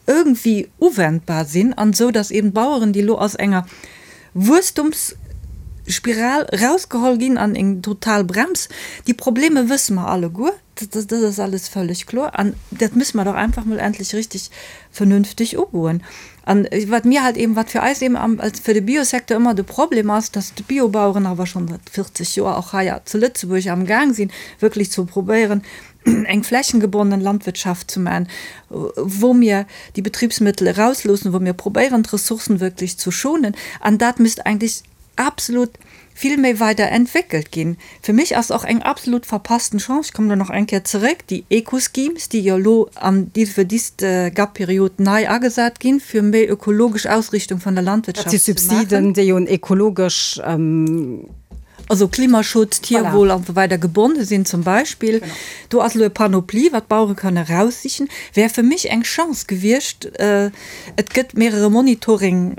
irgendwie uwendbar sinn an esou, datt eben d'Baueren, déi elo aus enger Wuesstumsspiral erausgeholl ginn an eng total Brems, déi Probleme wësse mer alleguer, dat ass alles völleg kloer an dat müsse mer doch einfach mol endlech richtig vernünftig ugoen. An wat mir halt eben, wat fir eis eben am, als fir de Biosecteur ëmmer de Problem ass, dass d'Biobaueren awer schonn säit 40 Joer och hei zu Lëtzebuerg am Gaang sinn, wierklech ze probéieren, eng flächengebonnen Landwirtschaft ze maachen, wou mir déi Betriebsmittel erausloossen, wou mir probéieren, d'Ressourcen wierklech ze schonen. An dat misst eigentlich absolut vill méi weider entwéckelt ginn. Fir mech ass och eng absolut verpassten Chance, ech kommen do nach eng Kéier zeréck, déi Eco-Schemes, déi jo elo an fir dist GAP-Period nei agesat ginn, fir méi ökologesch Ausrichtung vun der Landwirtschaft ze maachen. Dat si Subsiden, déi un ökologesch. Also Klimaschutz, Tierwohl an esou weider gebonne sinn zum Beispill. Do ass elo e Panoplie, wat d'Bauere kënne eraussichen. Wär fir mech eng Chance gewiescht. Et gëtt mehrere Monitoring.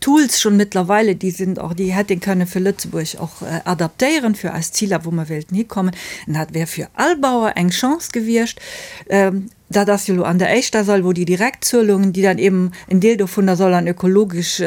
Tools schon mittlerweile, déi sinn och, déi hätt een kënne fir Lëtzebuerg och adaptéieren, fir eis Ziler, wou mer wéilten hikommen. An dat wär fir all Bauer eng Chance gewiescht. Dat ass jo elo an der éischter Sail, wou déi Direktzuelungen, déi dann eben en Deel dovunner soll an ökologesch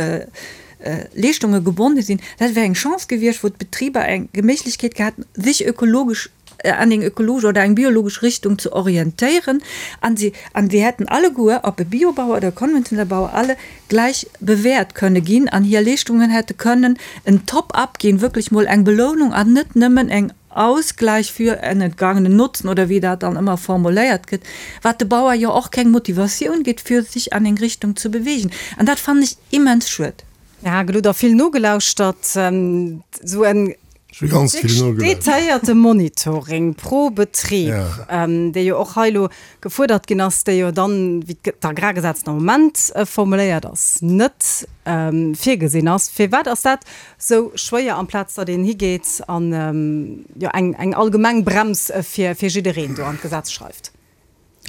Leeschtunge gebonne sinn, dat wär eng Chance gewiescht, wou d'Betriber eng Méiglechkeet gehat hätten, sech ökologesch. an eng ökologesch oder eng biologesch Richtung ze orientéieren. An si, an wir hätten alleguer, ob e Biobauer oder e konventionelle Bauer, alle gleich bewäert kënne ginn an hir Leeschtungen hätte kënnen en Top-up ginn, wierklech mol eng Belounung an net nëmmen eng Ausgleich für en entgangenen Nutzen oder wéi dat dann ëmmer formuléiert gëtt, wat de Bauer jo och keng Motivatioun gétt, fir sech an eng Richtung ze bewegen. An dat fannen ech immens schued. Här Hagel, hutt Der vill nogelauschtert? Esou en detailléierte Monitoring pro Betrib, dee jo och hei elo gefuerdert ginn ass, dee jo dann, wéi d'Agrargesetz den Moment formuléiert ass, net virgesinn ass. Firwat ass dat sou schwéier, amplaz datt een higeet an jo eng eng allgemeng Brems fir fir jiddereen do an d'Gesetz schreift?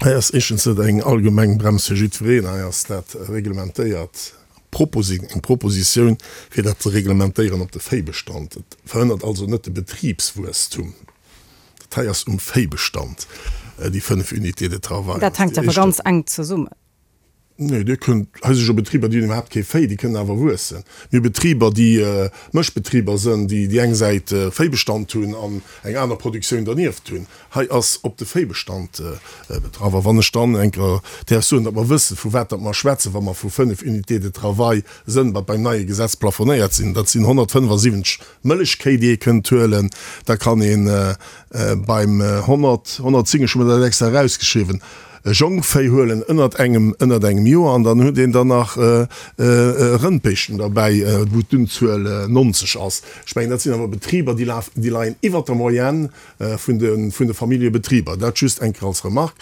Hei ass éischtens net eng allgemeng Brems fir jiddwereen, hei ass dat reglementéiert, Proposi eng Propositioun fir dat ze reglementéieren op de Véibestand. Et verhënnert also net de Betribswuesstum. Dat hei ass um Véibestand, déi 5 Unités de travail. Dat hänkt awer ganz enk zesummen. Nee, Dir kënnt, hei si jo Betriber, déi hunn iwwerhaapt kee Véi, déi kënnen awer wuessen. Mir hu Betriber, déi Mëschbetriber sënn, déi déi eng Säit Véibestand hunn an eng aner Produktioun dernieft hunn. Hei ass op de Véibestand betraff. A wann ech dann eng Kéier däerf soen, datt mer wëssen, vu wat datt mer schwätzen, wa mer vu 5 Unités de travail sënn, wat beim neie Gesetz plafonéiert sinn, dat sinn 175 Mëllechkéi, déi ee kënnt huelen, da kann ee beim 100, 110, ech hu mer dat extra erausgeschriwwen, Jongvéi huelen ënnert engem, ënnert engem Joer an dann huet een dann nach Rëndbéischten derbäi, wou d'Unzuel 90 ass. Ech mengen, dat sinn awer Betriber, déi lafen, déi leien iwwert der Moyenne vun de, vun de Familljebetriber. Dat just eng Kéier als Remarque.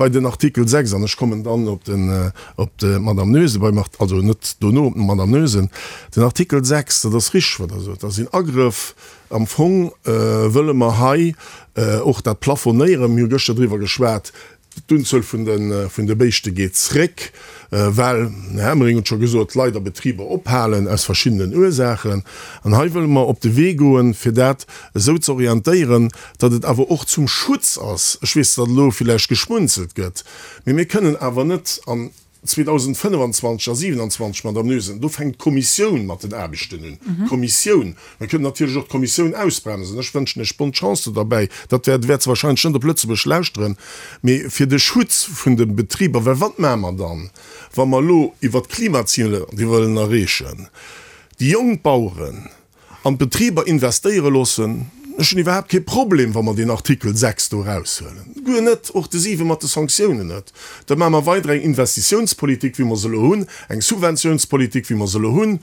Bei den Artikel 6, an ech kommen dann op den, op d'Madame Noesen, beim, also net dono, op d'Madame Noesen, den Artikel 6, dat ass richteg, wat Der sot, dat sinn Agrëff, Am Fong wëlle mer hei och dat plafonéieren. Mir hu gëschter driwwer geschwat, d'Unzuel vun de Béischte geet zréck, well, den Här Emering huet scho gesot, leider Betriber ophalen aus verschiddenen Ursaachen. An hei wëlle mer op de Wee goen, fir dat esou ze orientéieren, datt et awer och zum Schutz ass. Ech weess, datt elo villäicht geschmunzelt gëtt, mee mir kënnen awer net an 2025 a 27, Madame Noesen, do fänkt d'Kommissioun mat den Aarbechten un. D'Kommissioun. Mir kënnen natierlech och d'Kommissioun ausbremsen. Ech wënschen Iech bonne chance do derbäi. Dat wäert, wäert se wahrscheinlech net op Lëtzebuerg lauschteren. Mee fir de Schutz vun de Betriber, well wat maache mer dann, wa mer elo iwwert d'Klimaziler, déi wëllen erreechen, déi jonk Baueren, An d'Betriber investéiere loossen. Ech hunn iwwerhaapt kee Problem, wa mer deen Artikel 6 do eraushuelen. Guer net, och de 7 mat de Sanktiounen net. Da maache mer weider eng Investitiounspolitik, wéi mer se elo hunn, eng Subventiounspolitik, wéi mer se elo hunn,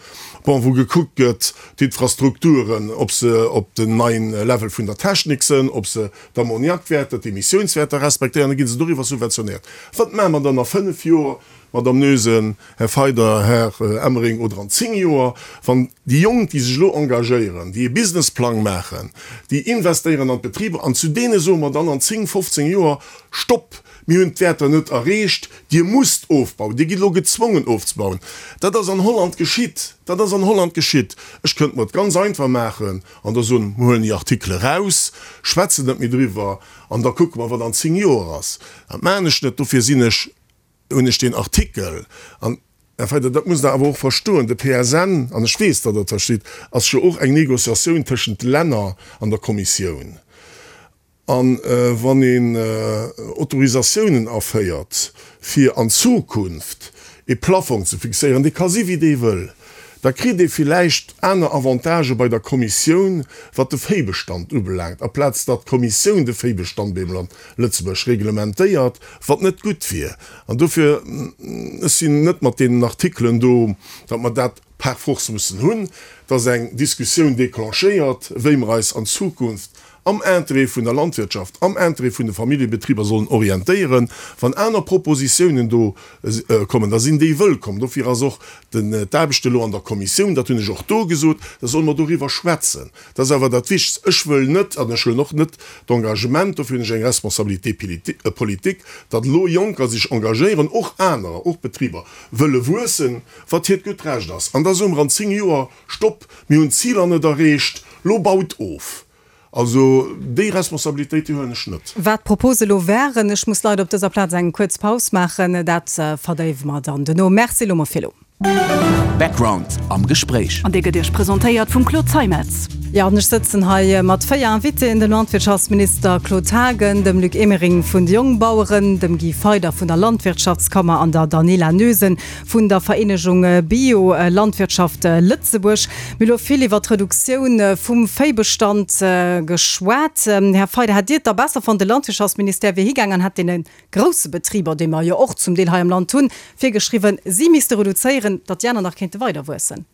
bon, wou gekuckt gëtt, d'Infrastrukturen, ob se op den neien Level vun der Technik sënn, ob se d'Ammoniakwäerter, d'Emissiounswäerter respektéieren, da gi se doriwwer subventionéiert. Wat maache mer dann a fënnf Joer, Madame Noesen, Här Feider, Här Emering, oder an 10 Joer, wann déi Jonk, déi sech elo engagéieren, déi e Businessplang maachen, déi investéieren an d'Betriber, an zu deene soe mer dann an 10, 15 Joer, Stopp, mir hunn d'Wäerter net erreecht, Dir musst ofbauen, Dir gitt elo gezwongen ofzebauen. Dat ass an Holland geschitt, dat ass an Holland geschitt. Ech kënnt mer et ganz einfach maachen an da soen, mir huelen déi Artikele raus, schwätzen net méi driwwer an da kucke mer, wat an 10 Joer ass. Dat maachen ech net, dofir sinn ech hunn ech deen Artikel, an, Här Feyder, dat musst Der awer och verstoen, de PSN, an ech weess, datt Der et verstitt, ass jo och eng Négociatioun tëschent de Länner an der Kommissioun. A wann een Autorisatiounen aféiert, fir an Zukunft e Plafong ze fixéieren, dee ka si wéi dee wëll, da kritt ee villäicht aner Avantagë bei der Kommissioun, wat de Véibestand ubelaangt, aplaz datt d'Kommissioun de Véibestand beim Land Lëtzebuerg reglementéiert, wat net gutt wier. An dofir, ech sinn net mat deenen Artikelen do, datt mer dat par force mussen hunn, dass eng Diskussioun déclenchéiert, wéi mer eis an Zukunft am Interêt vun der Landwirtschaft, am Interêt vun de Familljebetriber sollen orientéieren. Wann aner Propositiounen do kommen, da sinn déi wëllkomm. Dofir ass och d'Aarbecht elo an der Kommissioun, dat hunn ech och do gesot, da solle mer doriwwer schwätzen. Dat ass awer dat Wichtegst. Ech wëll net, an ech huelen och net d'Engagement, dofir hunn ech eng Responsabilité politique, datt elo Jonker sech engagéieren, och anerer, och Betriber wëlle wuessen, wat hiert gutt Recht ass. An da soe mer an 10 Joer, Stopp, mir hunn d'Ziler net erreecht, lo baut of. Also déi Responsabilitéit, déi huelen ech net. Wat d'Propose elo wären, ech muss leider op dëser Plaz eng kuerz Paus maachen, dat verdéiwe mer dann duerno. Merci elo mol fir elo. Background am Gespréich. An dee gëtt Iech presentéiert vum Claude Zeimetz. Jo, an ech sëtzen hei mat 4 Invitéen, dem Landwirtschaftsminister Claude Haagen, dem Luc Emering vun de Jongbaueren, dem Guy Feyder vun der Landwirtschaftskammer an der Daniela Noesen vun der Vereenegung Bio-Landwirtschaft Lëtzebuerg. Mir hu lo vill iwwer d'Reduktioun vum Véibestand geschwat. Här Feyder, hätt Dir et da besser fonnt, de Landwirtschaftsministère wier higaang an hätt deene grousse Betriber, déi mer jo och zum Deel hei am Land hunn, virgeschriwwen, si misste reduzéieren, datt déi aner nach kéinte weider wuessen?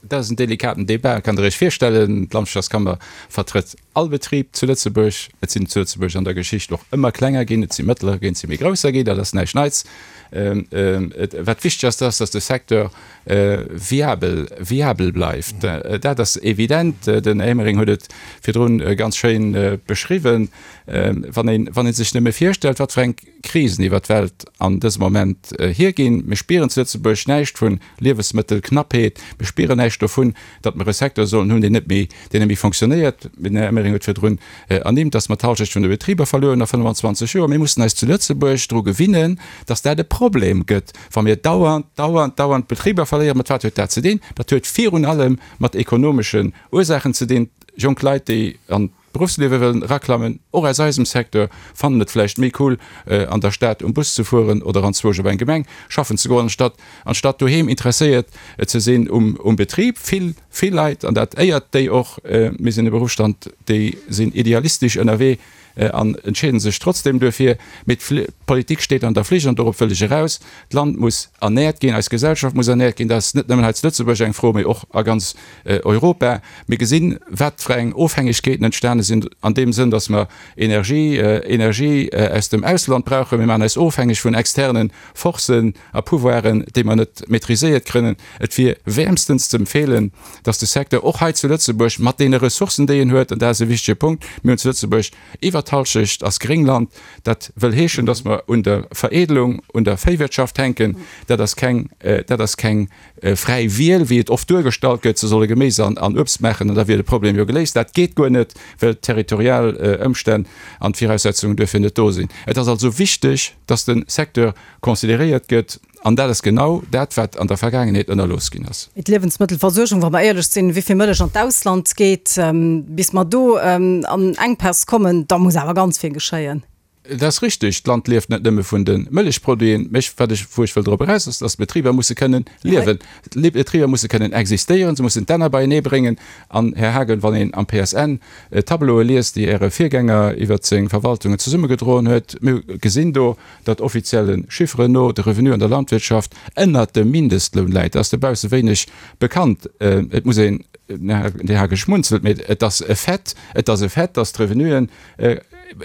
Dat ass en delikaten Débat, kann Der Iech virstellen. D'Landwirtschaftskammer vertrëtt all Betrib zu Lëtzebuerg. Et sinn zu Lëtzebuerg an der Geschicht och ëmmer klenger ginn, et si mëttlerer ginn, et si méi grousser ginn, dat ass näischt Neits. Wat wichteg ass, dat ass, datt de Secteur viabel, viabel bleift. Dat ass evident. Den Här Emering huet et virdrun ganz schéin beschriwwen. Wann een, wann ee sech nëmme virstellt, wat fir eng Krisen iwwer d'Welt an dësem Moment hierginn. Mir spieren zu Lëtzebuerg näischt vu Liewesmëttelknappheet. Mir spieren näischt dovun, datt mer e Secteur sollen hunn, deen net méi, deen net méi fonctionnéiert. Den Här Emering huet virdrun ernimmt, datt mer d'Halschecht vun de Betriber verluer hunn a 25 Joer. Mir mussen eis zu Lëtzebuerg dru gewinnen, datt dat e Problem gëtt, wa mir dauernd, dauernd, dauernd Betriber verléieren. Mat wat huet dat ze dinn? Dat huet virun allem mat ekonomeschen Ursaachen ze dinn. Jonk Leit, déi an D'Beruffsliewe wëllen eraklammen, och aus eisem Secteur, fannen et vläicht méi cool, an der Stad um Bus ze fueren oder anzwousch op eng Gemeng schaffen ze goen, anstatt anstatt doheem interesséiert ze sinn um um Betrib. Vill, vill Leit, an dat éiert déi och, mir sinn e Beruffsstand, déi sinn idealistesch ënnerwee an entscheeden sech trotzdem duerfir. Mee d'Politik steet an der Flicht an dorop wëll ech eraus. D'Land muss ernährt ginn, eis Gesellschaft muss ernährt ginn. Dat ass net nëmmen hei zu Lëtzebuerg eng Fro, mee och a ganz Europa. Mir gesinn, wat fir eng Ofhängegkeeten entstane sinn an deem Sënn, dass mer Energie, Energie aus dem Ausland brauchen. Mir maachen eis ofhängeg vun externe Forcen a Pouvoiren, déi mer net maîtriséiert krënnen. Et wier wäermstens ze empfeelen, dass de Secteur och hei zu Lëtzebuerg mat deene Ressourcen, déi en huet, an dat ass e wichtige Punkt, mir hunn zu Lëtzebuerg iwwert d'Halschecht ass Gréngland, dat wëll heeschen, dass mer un der Veredelung, un der Véiwirtschaft hänken. Dat ass keng, dat ass keng fräi Wiel, wéi et oft duergestallt gëtt, se solle Geméis an Uebst maachen an da wier de Problem jo geléist. Dat geet guer net, well d'territorial Ëmstänn an d'Viraussetzungen duerfir net do sinn. Et ass also wichteg, dass de Secteur consideréiert gëtt an dat ass genau dat, wat an der Vergaangenheet ënnerlooss ginn ass. D'Liewensmëttelversuergung, wa mer éierlech sinn, wéi vill Mëllech an d'Ausland geet, bis mer do an Enkpäss kommen, da muss awer ganz vill geschéien. Et ass richteg, d'Land lieft net nëmme vun de Mëllechproduiten. Mä wat ech, wou ech wëll drop eraus, ass, dass d'Betriber musse kënnen liewen. D'Betriber musse kënnen existéieren, se mussen d'Enner beienee bréngen. An, Här Haagen, wann een am PSN d'Tableaue liest, déi Äre Virgänger iwwert seng Verwaltungen zesummegedroen huet, mir gesinn do, datt offizielle Chifferen no de Revenu an der Landwirtschaft ënnert dem Mindestloun läit. Dat ass dobausse wéineg bekannt. Et muss een, den Här Haagen schmunzelt, mä et ass e Fait, et ass e Fait, dass d'Revenuen,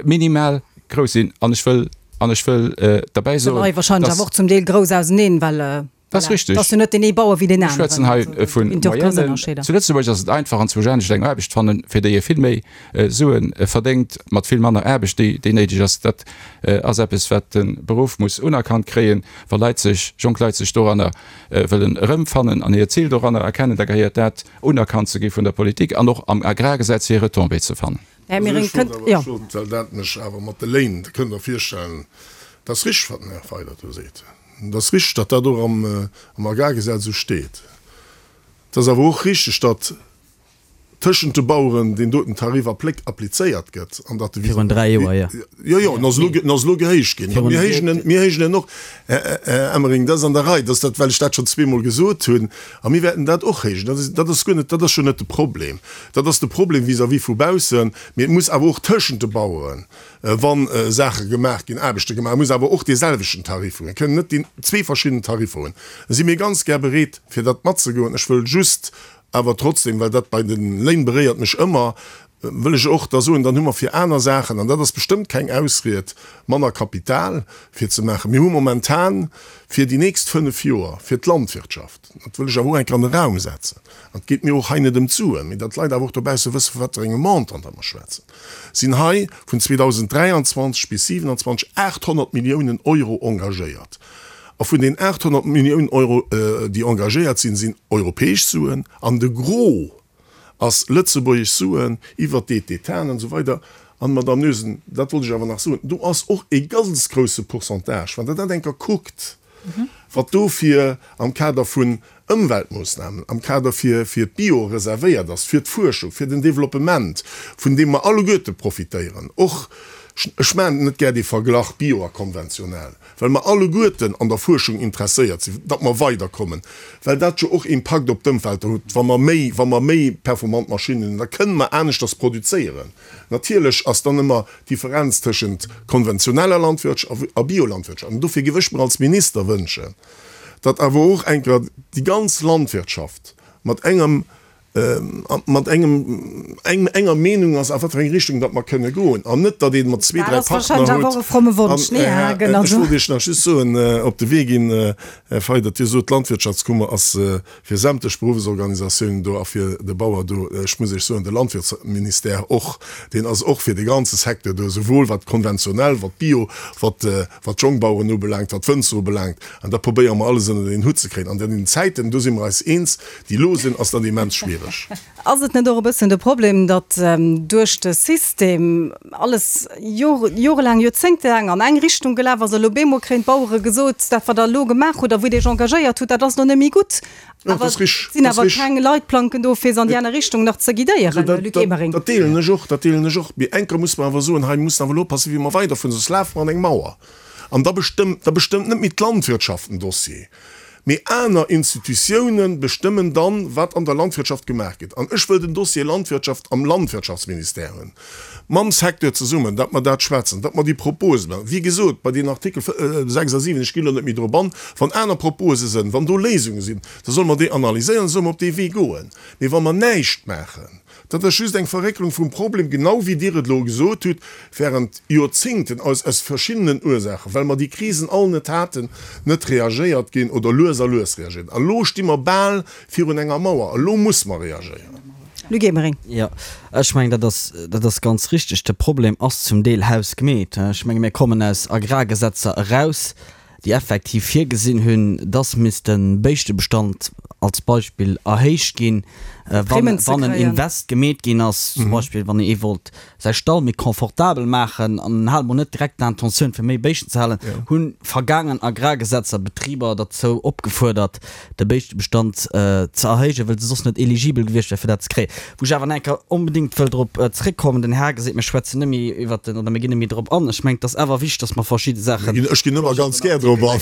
minimal grouss sinn. An ech wëll, an ech wëll derbäi soen, dass. Wahrscheinlech awer och zum Deel grouss auseneen, well Dat ass richtig. Et ass jo net deen ee Bauer wéi deen aneren. Ech schwätzen hei vu Moyennen. Zu Lëtzebuerg ass et einfach, anzwousch anescht eng Aarbecht fannen, fir déi ee vill méi Sue verdéngt, mat vill manner Aarbecht, déi, déi néideg ass. Dat ass eppes, wat de Beruff muss unerkannt kréien. Wa Leit sech, jonk Leit sech doranner wëllen erëmfannen an hiert Zil doranner erkennen, da gehéiert dat unerkannt ze gi vun der Politik an och am Agrargesetz hir Retombée ze fannen. Här Mering, kënnt, jo. Ech wollt, well dat mech awer mat de Léin, dat kënnt Der virstellen, dat ass richteg, wat den Här Feiler do seet. Et ass richteg, datt dat och am Agrargesetz esou steet. Et ass awer och richteg, datt tëschent de Baueren deen doten Tarif applizéiert gëtt an datt de. Virun 3 Joer, jo. Jo, jo, en ass elo, en ass elo gehéicht ginn. Mir héijen en, mir héijen en och, Här Emering, dat ass an der Rei, dat ass dat, well ech dat schonn zweemol gesot hunn. A mir wäerten dat och héijen. Dat ass, dat ass guer net, dat ass jo net de Problem. Dat ass de Problem vis-à-vis vu baussen. Mee et muss awer och tëschent de Baueren, wa Saache gemaach ginn, Aarbechte gemaach, muss awer och dee selwechten Tarif hunn. Mir kënnen net déi zwee verschidden Tariffer hunn. Da si mir ganz gär bereet, fir dat matzegoen. Ech wëll just awer trotzdem, well dat bei de Léin beréiert mech ëmmer, wëll ech och da soen, dann hu mer fir aner Saachen, an dat ass bestëmmt keng Ausried, manner Kapital fir ze maachen. Mir hu momentan fir déi nächst fënnf Joer fir d'Landwirtschaft, dat wëll ech awer och eng Kéier an de Raum setzen, an et geet mir och hei net ëm d'Suen, mee datt d'Leit awer och dobausse wësse vu wat fir engem Montant datt mer schwätzen, sinn hei vun 2023 bis 2027 800 Milliounen Euro engagéiert. A vun den 800 Milliounen Euro, déi engagéiert sinn, sinn europäesch Suen an de Gros ass lëtzebuergesch Suen iwwert d'Aide d'État an esou weider. An, Madamm Noesen, dat wollt ech awer nach soen, do ass och e ganz grousse Pourcentage, wann Der dat eng Kéier kuckt, wat do fir am Kader vun. Ëmweltmoossnamen, am Kader fir fir d'Bio reservéiert ass, fir d'Fuerschung, fir den Développement, vun deem mer alleguerte profitéieren, och, ech maachen net gär dee Verglach Bio a konventionell, well mer alleguerten an der Fuerschung interesséiert sinn, datt mer weiderkommen, well dat jo och Impakt op d'Ëmwelt huet, wa mer méi, wa mer méi performant Maschinnen hunn, da kënnen mer aneschters produzéieren. Natierlech ass dann ëmmer d'Differenz tëschent konventioneller Landwirtschaft a Biolandwirtschaft. An dofir géif ech mer als Minister wënschen, datt awer och eng Kéier déi ganz Landwirtschaft mat engem, mat engem, enger Meenung ass, a wat fir eng Richtung datt mer kënne goen, an net, datt ee mat zwee, dräi Partner huet. An ech wollt Iech nach just soen, op de Wee ginn, Här Fayot, datt Dir sot, d'Landwirtschaftskummer ass fir sämtlech Beruffsorganisatiounen do a fir de Bauer do. Ech muss Iech soen, de Landwirtsministère och, deen ass och fir de ganze Secteur do, esouwuel wat konventionell, wat Bio, wat wat d'Jongbaueren ubelaangt, wat d'Wënzer ubelaangt. An da probéiere mer alles ënnert een Hutt ze kréien. An den Zäiten, do si mer eis eens, déi elo sinn, ass dat immens schwiereg. Ass et net och e bëssen de Problem, datt duerch de System alles jorelaang, joerzéngtelaang an eng Richtung gelaf ass a lo bemol kréien d'Bauere gesot, dat wat der elo gemaach hutt a wou Dir Iech engagéiert hutt, dat ass elo net méi gutt. Awer et sinn awer keng Leitplanken do, fir se an déi aner Richtung nach ze guidéieren, Luc Emering. Dat deelen ech och, dat deelen ech och. Mee eng Kéier muss mer awer soen, hei mussen awer elo oppassen, wéi mer weiderfueren, soss lafe mer an eng Mauer. An da bestëmmt, da bestëmmt net méi d'Landwirtschaft den Dossier, mee aner Institutiounen bestëmmen dann, wat an der Landwirtschaft gemaach gëtt. An ech wëll den Dossier Landwirtschaft am Landwirtschaftsministère hunn, mam Secteur zesummen, datt mer dat schwätzen, datt mer déi Propose maachen. Wéi gesot, bei den Artikel 6 a 7, ech ginn elo net méi drop an, wann aner Propose sënn, wann do Léisunge sinn, da solle mer déi analyséieren, da solle mer op dee Wee goen. Mee wa mer näischt maachen, Dat ass just eng Verrécklung vum Problem, genau wéi Dir et elo gesot hutt, während Joerzingten aus aus verschiddenen Ursaachen, well mer déi Krisen all net haten, net reagéiert ginn oder lues a lues reagéiert. A lo sti mer bal virun enger Mauer. A lo muss mer reagéieren. Luc Emering. Jo, ech mengen, dat ass, dat ass ganz richtig. De Problem ass zum Deel hausgemeet. Ech menge mir kommen aus Agrargesetzer eraus, déi effektiv virgesinn hunn, dass misst de Béischtebestand als Beispill erhéicht ginn, wann en Invest gemeet ginn ass, zum Beispill wann ee wollt säi Stall méi confortabel maachen an en hat emol net direkt d'Intentioun fir méi Béischten ze halen, hu vergaangen Agrargesetzer Betriber derzou opgefuerdert, de Béischtebestand ze erhéijen, well se soss net eligibel gewiescht wäre fir dat ze kréien. Wou ech awer nach eng Kéier onbedéngt wëll drop zréckkommen, den Här geseet, mir schwätzen net méi iwwert den, oder mir ginn net méi drop an. Ech mengen, et ass awer wichteg, dass mer verschidde Saachen. Ech ginn ëmmer ganz gär drop an.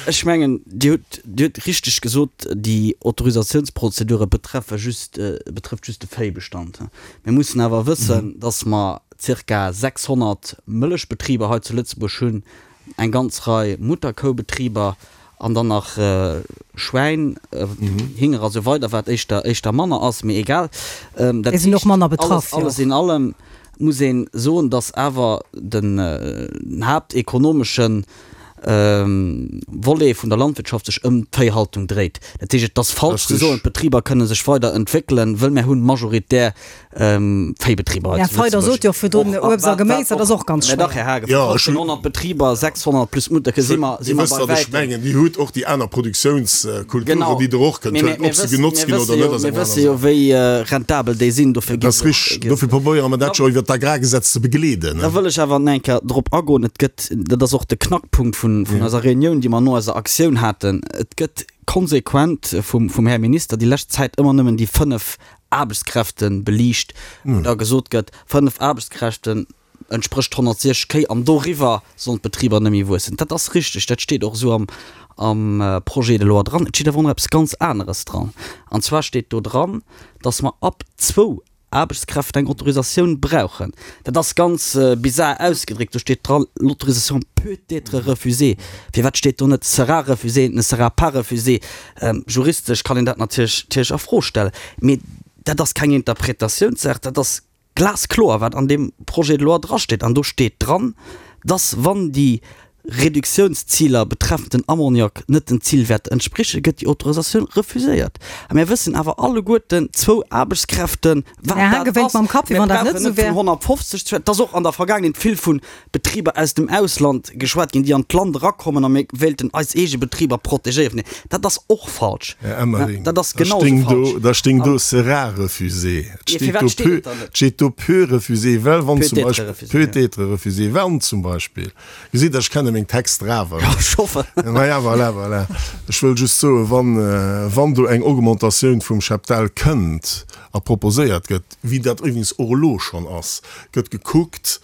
Ech mengen, Dir hutt, Dir hutt richteg gesot, déi Autorisatiounsprozedure betreffe just, betrëfft just de Véibestand. Mir mussen awer wëssen, dass mer zirka 600 Mëllechbetriber hei zu Lëtzebuerg hunn, eng ganz Rei Mutterkoubetriber an dann nach Schwäin, Hinger a sou weider, wat éischter éischter manner ass, mee egal. Dat Déi sinn och manner betraff, jo. Alles in allem muss ee soen, datt awer den haaptekonomeschen Volet vun der Landwirtschaft sech ëm d'Véihaltung dréit. Dat heescht, et ass falsch ze soen, d'Betriber kënne sech weider entwéckelen, wëll mär hunn majoritär Véibetriber hei zu Lëtzebuerg. Här sot jo virdrun, Uebst a Geméis, dat ass och ganz schwéier. Mä dach, Här Haagen, vu 1.500 Betriber, 600 plus Mutterke si mer, si mer bei wäitem. Dir wësst, wat ech mengen. Dir hutt och déi aner Produktiounskulturen, déi Der och kënnt huelen. Ob se genotzt ginn oder net, ass eng aner Saach. Mir wësse jo, wéi rentabel déi sinn. Dofir gi se och. Dat ass richtig. Dofir probéiere mer dat jo iwwert d'Agrargesetz ze begleeden. Da wëll ech awer nach eng Kéier drop agoen. Et gëtt, dat ass och de Knackpunkt vun eiser Reunioun, déi mer no eiser Aktioun haten, et gëtt konsequent vum Här Minister déi lescht Zäit ëmmer nëmmen déi 5 Aarbechtskräfte beliicht, wou da gesot gëtt, 5 Aarbechtskräften entsprécht 160 Kéi an doriwwer sollen d'Betriber net méi wuessen. Dat ass richteg, dat steet och esou am am Projet de loi dran. Et steet awer och nach eppes ganz aneres dran, an zwar steet do dran, datt mer ab zwou Aarbechtskräften eng Autorisatioun brauchen. Dat ass ganz bizar ausgedréckt, do steet dran, l'autorisation peut être refusée. Firwat steet do net sera refusée, ne sera pas refusée? Juristesch kann een dat natierlech a Fro stellen, mee dat ass keng Interpretatiounssaach, dat ass glaskloer, wat an deem Projet de loi drasteet. An do steet dran, dass, wann déi Reduktiounsziler betreffend den Ammoniak net den Zilwäerter entsprichen, gëtt déi Autorisatioun refuséiert. A mir wëssen awer alleguerten, zwou Aarbechtskräften, wat dat ass. Mir brauchen net vun 150 ze schwätzen. Et ass och an der Vergaangenheet vill vu Betriber aus dem Ausland geschwat ginn, déi an d'Land erakommen a mir wéilten eis eege Betriber protegéieren. Dat ass och falsch. Här Emering, Dat ass genau esou falsch. da stéing do sera refusé. Et steet do peut, et steet do peut refusé, well wann zum Beispill, peut être refusé, wann zum Beispill, gesitt Der, ech kenne meng. meng Texter awer. Jo, ech hoffen. Naja, voilà, voilà. Ech wëll just soen, wann, wann do eng Augmentatioun vum Cheptel kënnt a proposéiert gëtt, wéi dat iwwregens och elo schonn ass, gëtt gekuckt,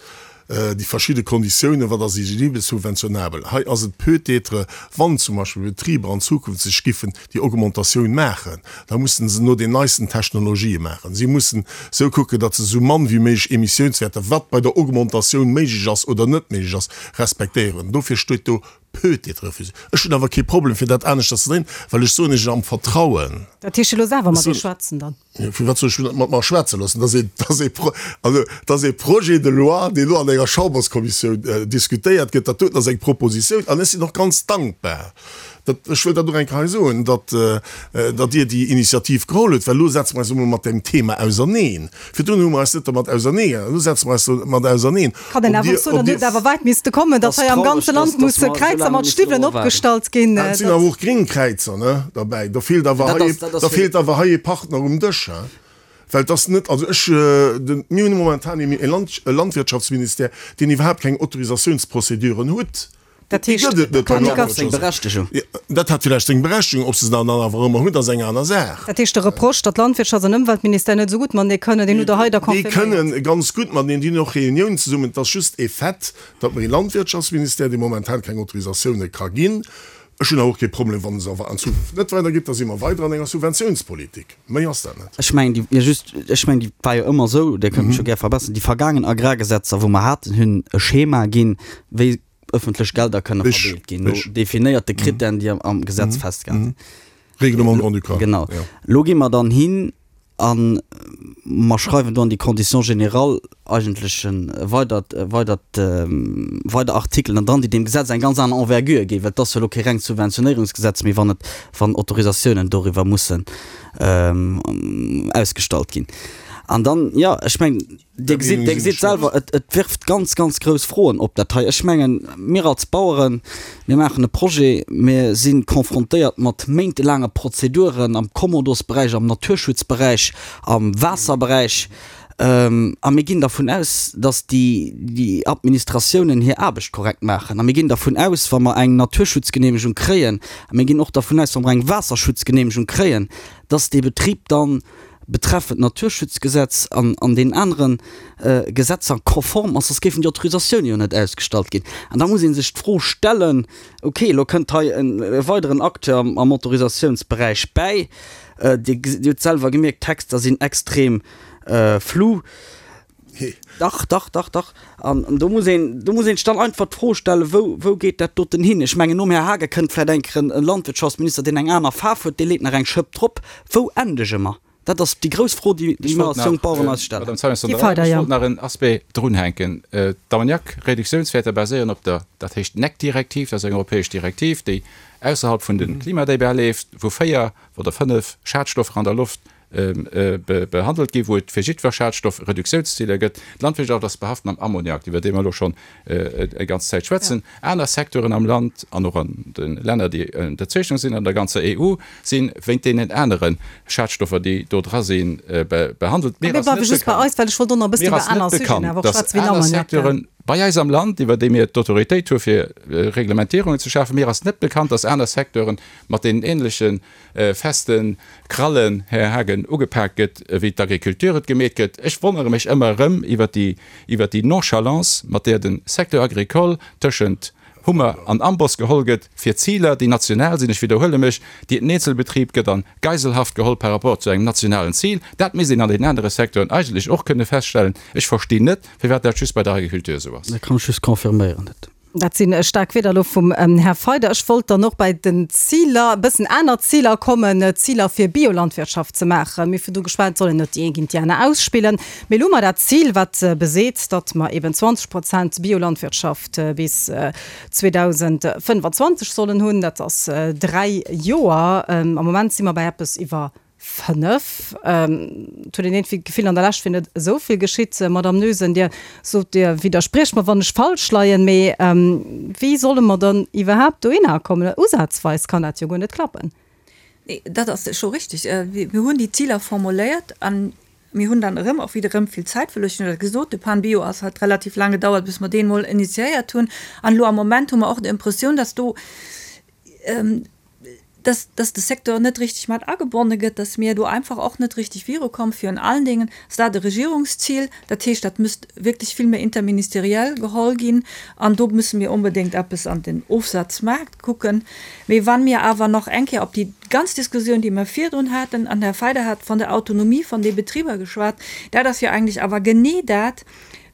déi verschidde Konditiounen, wat ass eligibel, subventionabel. Hei ass et peut-être, wann zum Beispill Betriber an Zukunft sech giffen déi Augmentatioun maachen, da mussen se no den neisten Technologië maachen. Si mussen esou kucken, datt se esou mann wéi méiglech Emissiounswäerter, wat bei der Augmentatioun méiglech ass oder net méiglech ass, respektéieren. Dofir steet do peut-être refusé. Ech hunn awer kee Problem, fir dat aneschters ze dréinen, well ech soen Iech am Vertrauen. Dat heescht, Dir loosst awer mat Iech schwätzen dann? Firwat soll ech mech net mat mer schwätze loossen? Dat ass ee, dat ass ee Pro, also dat ass ee Projet de loi, deen elo an enger Chamberskommissioun diskutéiert gëtt. Dat doten ass eng Propositioun an ech sinn och ganz dankbar, dat, ech wëll dat och eng Kéier hei soen, datt, datt Dir déi Initiativ geholl hutt, well elo setze mer eis emol mat deem Thema auserneen. Virdrun hu mer eis net domat auserneegesat, elo setze mer eis domat auserneen. Kann een awer och soen, dann huet et awer wäit misste kommen, datt hei am ganze Land musse Kräizer mat Stiwwelen opgestallt ginn. Et sinn awer och gréng Kräizer, ne, derbäi. Do feelt awer hei, da feelt awer hei ee Partner um Dësch, hein. Well et ass net, also ech, de, mir hunn momentan e Land, e Landwirtschaftsministère, deen iwwerhaapt keng Autorisatiounsprozeduren hutt. Dat heescht, Dat hat seng Berechtegung. Dat hat villäicht seng Berechtegung. Ob se se dann awer ëmmer hunn, dat ass eng aner Saach. Dat heescht, de Reproche, datt Landwirtschafts an Ëmweltministère net esou gutt matenee kënnen, deen hutt Der hei da confirméiert? Déi kënnen ganz gutt mateneen, déi hunn och Reuniounen zesummen. Et ass just e Fait, datt mer ee Landwirtschaftsministère, dee momentan keng Autorisatioune ka ginn. Ech hunn awer och kee Problem, wann se awer an Zukunft net weidergitt, da si mer weider an enger Subventiounspolitik. Méi ass dat net. Ech mengen, déi, just, ech mengen, déi war jo ëmmer esou, Dir kënnt mech jo gär verbesseren, déi vergaangen Agrargesetzer, wou mer haten, hunn e Schema ginn, wéi ëffentlech Gelder kënne verdeelt ginn, no definéierte Krittären, déi am Gesetz festgehale sinn. Règlement grand-ducal. Genau. Elo gi mer dann hin a mer schreiwen do an déi Conditions générales eigentlech e weidert, weidert, weider Artikelen dran, déi deem Gesetz eng ganz aner Envergure ginn, well et ass jo elo kee rengt Subventionéierungsgesetz méi, wann et, wann Autorisatiounen doriwwer mussen ausgestallt ginn. An dann, jo, ech mengen, Dir gesitt, Dir gesitt selwer, et, et wirft ganz, ganz grouss Froen op, dat hei. Ech mengen, mir als Baueren, mir maachen e Projet, mir si confrontéiert mat méintelaange Prozeduren am Kommodosberäich, am Naturschutzberäich, am Waasserberäich, a mir ginn dervun aus, datt déi, déi Administratiounen hir Aarbecht korrekt maachen. A mir ginn dervun aus, wa mer eng Naturschutzgeneemegung kréien, a mir ginn och dervun aus, wa mer eng Waasserschutzgeneemegung kréien, datt dee Betrib dann, betreffend Naturschutzgesetz an an deenen anere Gesetzer konform ass, soss géifen déi Autorisatioune jo net ausgestallt ginn. An da muss ee sech d'Fro stellen, okay, elo kënnt hei e weideren Acteur am Autorisatiounsberäich bäi, Dir hutt selwer gemierkt, d'Texter sinn extrem flou. Dach, dach, dach, dach. An do muss een, do muss een sech dann einfach d'Fro stellen, wou, wou geet dat doten hin? Ech mengen, nom Här Haagen kënnt vläicht eng Kéier en Landwirtschaftsminister, deen eng aner Faarf huet, dee leet nach eng Schëpp drop. Wou endege mer? Dat ass déi grouss Fro, déi Ech mir wollt als jonk nach, Baueren eis stellen. Madame Zeimetz, Gi weider, ech jo. wollt nach en Aspect drunhänken. D'Ammoniak-Reduktiounswäerter baséieren op der, dat heescht NEC-Direktiv, dat ass eng europäesch Direktiv, déi ausserhalb vun de Klimadébat leeft, wou 4 oder 5 Schadstoffer an der Loft behandelt ginn, wou et fir jiddwer Schadstoff Reduktiounsziler gëtt. D'Landwirtschaft ass behaft mam Ammoniak, iwwer dee mer elo schonn eng ganz Zäit schwätzen. Aner Secteuren am Land an och an de Länner, déi ënnerzeechnung sinn, an der ganzer EU, si wéint deenen anere Schadstoffer, déi do dra sinn, behandelt. Mir ass net bekannt, mir ass net bekannt, datt aner Secteuren bei eis am Land, iwwer déi mir d'Autoritéit hu fir Reglementierungen ze schafen, mir ass net bekannt, datt aner Secteuren mat deenen ähnleche feste Krallen, Här Haagen, ugepaakt gëtt, wéi d'Agriculture et gemeet gëtt. Ech wonnere mech ëmmer erëm iwwert déi, iwwert déi Nonchalance, mat där de Secteur agricole tëschent Hummer an Amboss geholl gëtt fir Ziler, déi national sinn, ech widderhuele mech, déi den Eenzelbetrib gëtt an Geiselhaft geholl par rapport zu engem nationalen Zil. Dat misst een an den anere Secteuren eigentlech och kënne feststellen. Ech verstinn net, firwat dat just bei der Agriculture esou ass. Dat kann ech just confirméieren. Dat. Dat si staark Wierder elo vum Här Feider. Ech wollt dann och bei den Ziler, e bëssen aner Ziler kommen, Ziler fir Biolandwirtschaft ze maachen. Mir hu virdu geschwat, et soll een net déi eng géint déi aner ausspillen. Mee elo hu mer dat Zil, wat beseet, datt mer eben 20 Prozent Biolandwirtschaft bis 2025 sollen hunn. Dat ass dräi Joer. Am Moment si mer bei eppes iwwer 5. Et huet een iergendwéi d'Gefill, an der Lescht wier net esou vill geschitt. Madamm Noesen, Dir sot, Dir widderspriecht mer, wann ech falsch leien, mee wéi solle mer dann iwwerhaapt dohinner kommen? Usazweis kann dat jo guer net klappen. Nee, dat ass scho richtig. Mir hunn déi Ziler formuléiert an. Mir hunn dann erëm och wieder erëm vill Zäit verluer. Ech hunn dat gesot, de PAN-Bio ass hat relativ laang gedauert, bis mer deen emol initiéiert hunn. An elo am Moment hu mer och d'Impressioun, dass do, dass, dass de Secteur net richtig mat agebonne gëtt, dass mir do einfach och net richtig virukommen. Virun allen Dingen ass dat e Regierungsziel. Dat heescht, dat müsst wierklech vill méi interministeriell geholl ginn. An do müsse mir onbedéngt eppes an den Ofsazmaart kucken. Mee wa mir awer nach eng Kéier op déi ganz Diskussioun, déi mir virdrun haten, an Här Feider hat von der Autonomie von de Betriber geschwat, dat ass jo eigentlech awer genee dat,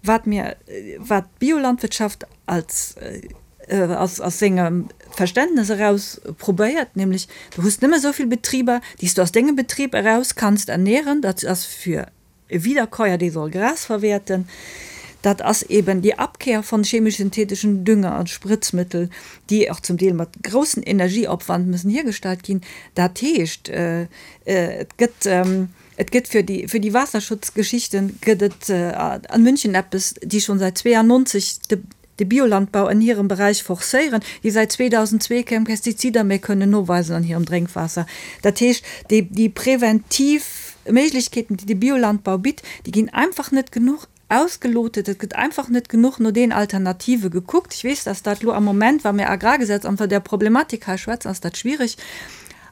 wat mir, wat d'Biolandwirtschaft als, aus, aus sengem Verständnes eraus probéiert, nämlech du hues nëmme esou vill Betriber, déi s du aus dengem Betrib eraus kanns ernähren, dat ass fir E Wiederkäuer, dee soll Gras verwäerten. Dat ass eben déi Abkehr von chemisch-synthetischen Dünger an Spritzmittel, déi och zum Deel mat groussen Energieopwand müssen hiergestallt ginn. Dat heescht, et gëtt, et gëtt fir déi, fir déi Waasserschutzgeschichten gëtt et an München eppes, déi schon säit 92 de, de Biolandbau an hirem Beräich forcéieren, déi säit 2002 keng Pestizider méi kënnen noweisen an hirem Drénkwaasser. Dat heescht, déi, déi preventiv Méiglechkeeten, déi de Biolandbau bitt, déi ginn einfach net genuch ausgelotet. Et gëtt einfach net genuch no den Alternative gekuckt. Ech weess, dass dat elo am Moment, wa mir Agrargesetz an der Problematik hei schwätzen, ass dat schwierig.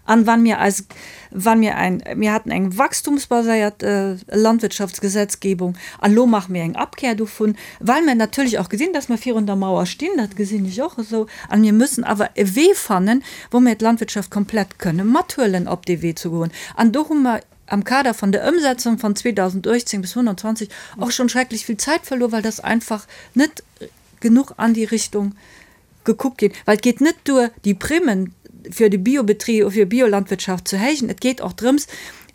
An wann mir eis, wann mir ein, mir haten eng wachstumsbaséiert Landwirtschaftsgesetzgebung an elo maache mir eng Abkehr dovun, well mir natierlech och gesinn, dass mir virun der Mauer stinn, dat gesinn ech och esou, an mir müssen awer e Wee fannen, wou mir d'Landwirtschaft komplett kënne mathuelen op dee Wee ze goen. An do hu mer am Kader von der Ëmsetzung von 2018 bis 2025 och schonn schrecklech vill Zäit verluer, well das einfach net genuch an déi Richtung gekuckt ginn, well et geet net duer, déi Primmen fir de Biobetrib, fir Biolandwirtschaft ze héijen, et geet och drëms,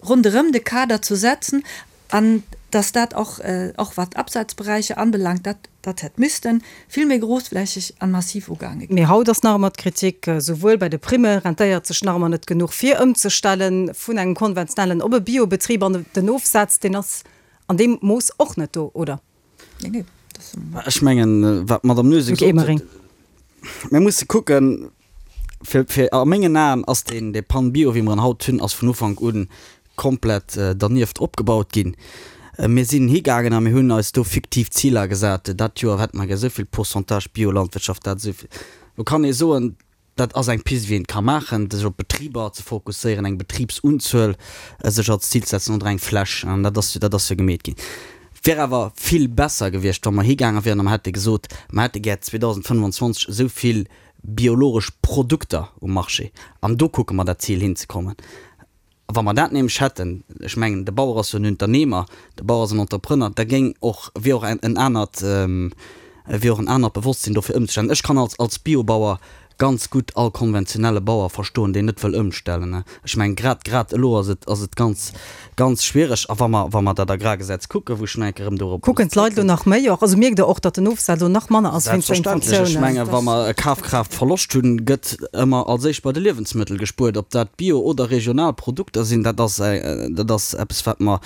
ronderëm de Kader ze setzen an dass dat och, och wat d'Absatzberäicher anbelangt, dat, dat hätt misste vill méi grossflächeg an massiv ugaange ginn. Mee haut ass nach ëmmer d'Kritik, souwuel bei de Primme rentéiert sech nach ëmmer net genuch fir ëmzestelle vun engem konventionellen op e Biobetrib an den Ofsaz, deen ass an deem Mooss och net do, oder? Ech mengen, wat d'Madame Noesen gesot huet, mir musse kucken, fir, fir a mengen Aen ass deen, dee Pan Bio, wéi mer en haut hunn, ass vun Ufank u komplett dernieft opgebaut ginn. Mir sinn higaangen a mir hunn eis do fiktiv Ziler gesat, dat Joer hätte mer gär esou vill Pourcentage Biolandwirtschaft, dat esou vill. Lo kann ee soen, Dat ass eng Pist, wéi een et ka maachen, sech op Betriber ze fokusséieren, eng Betribsunzuel sech als Zil ze setzen oder eng Fläch. An dat ass, dat ass jo gemeet ginn. Et wär awer vill besser gewiescht, wa mer higaange wieren a mer hätte gesot, mer hätte gär 2025 esou vill biologesch Produkter um Marché an do kucke mer dat Zil hinzekommen. A wa mer dat nämlech hätten, ech mengen, de Bauer ass jo en Unternehmer, de Bauer ass en Entrepreneur, da géing och, wier och en anert, wier och en anert Bewosstsinn do fir ëmzestellen. Ech kann als, als Biobauer ganz gutt all konventionelle Bauer verstoen, deen net wëll ëmstellen. Ech mengen, grad, grad elo ass et, ass et ganz, ganz schwiereg. A wa mer, wa mer dat Agrargesetz kucken, wou ech nach eng Kéier erëm dorop muss Kucken d'Leit elo nach méi och? Also mierkt Der och, datt den Ofsaz elo nach manner ass wéinst der Selbstverständlech. Ech mengen, wa mer e Kafkraaftverloscht hunn, gëtt ëmmer als éischt bei de Liewensmëttel gespuert. Ob dat Bio oder regional Produkter sinn, dat ass, dat ass eppes, wat mer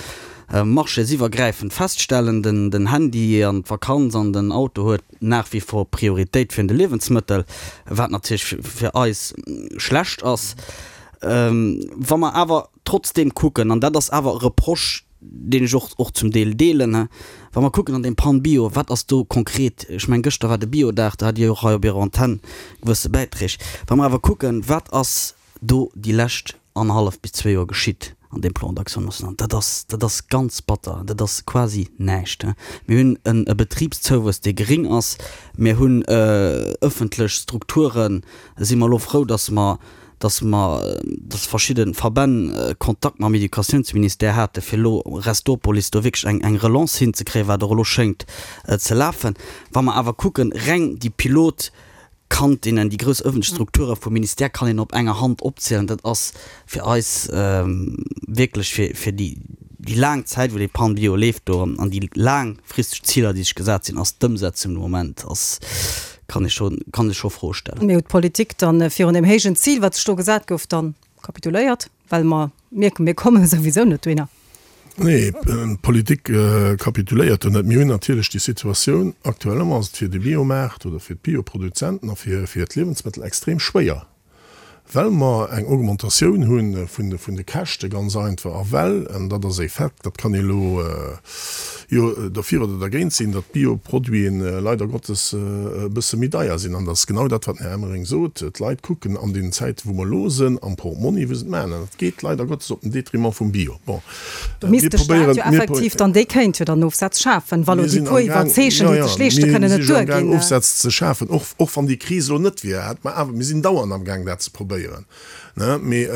marchésiwwergräifend feststellen. Den, den Handy an d'Vakanz an den Auto huet nach wie vor Prioritéit virun de Liewensmëttel, wat natierlech fir eis schlecht ass. Wa mer awer trotzdeem kucken, an dat ass awer e Reproche, deen ech och och zum Deel deelen, wa mer kucken an deem Pan Bio, wat ass do konkret, ech mengen, gëschter war de Biodag, do hat Dir jo och hei op Irer Antenn gewësse Bäiträg, wa mer awer kucken, wat ass do déi lescht annerhallef bis zwee Joer geschitt an deem Plan d'action national, dat ass, dat ass ganz batter, dat ass quasi näischt. Mir hunn en e Betribszouwuess, dee gering ass, mir hunn ëffentlech Strukturen, si mer elo frou, datt mer dass mer, dass verschidde Verbänn Kontakt mam Educatiounsministère hate fir elo Restopolis do wierklech eng eng Relance hinzekréien, wat och elo schéngt ze lafen. Wa mer awer kucken, reng déi Pilotkantinnen, déi grouss ëffentlech Strukture vum Ministère kann een op enger Hand opzielen. Dat ass fir eis wierklech fir fir déi déi laang Zäit wou dee Pan Bio leeft do an déi laangfristeg Ziler déi sech gesat sinn, ass d'Ëmsetzung de Moment ass Kann ee scho, kann ee scho Froe stellen. Mee huet d'Politik dann virun deem héijen Zil, wat sech do gesat gouf, dann kapituléiert? Well mer mierken, mir komme souwisou net dohinner. Nee, d'Politik kapituléiert do net. Mir hunn natierlech déi Situatioun, aktuell ass et fir de Biomaart oder fir d'Bioproduzenten a fir, fir d'Liewensmëttel extrem schwéier. Well mer eng Augmentatioun hu vun de Käschte ganz einfach a well, an dat ass e Fait, dat kann ee elo jo derfir oder dergéint sinn, datt d'Bioproduiten leider Gottes e bësse méi deier sinn. An dat ass genau dat, wat den Här Emering sot, D'Leit kucken an deenen Zäiten, wou mer elo sinn, am Portmonni, wou se et maachen. An dat geet leider Gottes op den Detriment vum Bio. Bon, Do misst de Staat jo effektiv dann, dee kéint jo dann Ofsätz schafen, wa lo déi puer Iwwerzeechen, déi sech leeschte kënnen, net duerginn. Mir sinn amgaang Ofsätz ze schafen, och, och wann déi Kris elo net wier, hätt mer awer, mir sinn dauernd amgaang dat ze probéieren, ne. Mee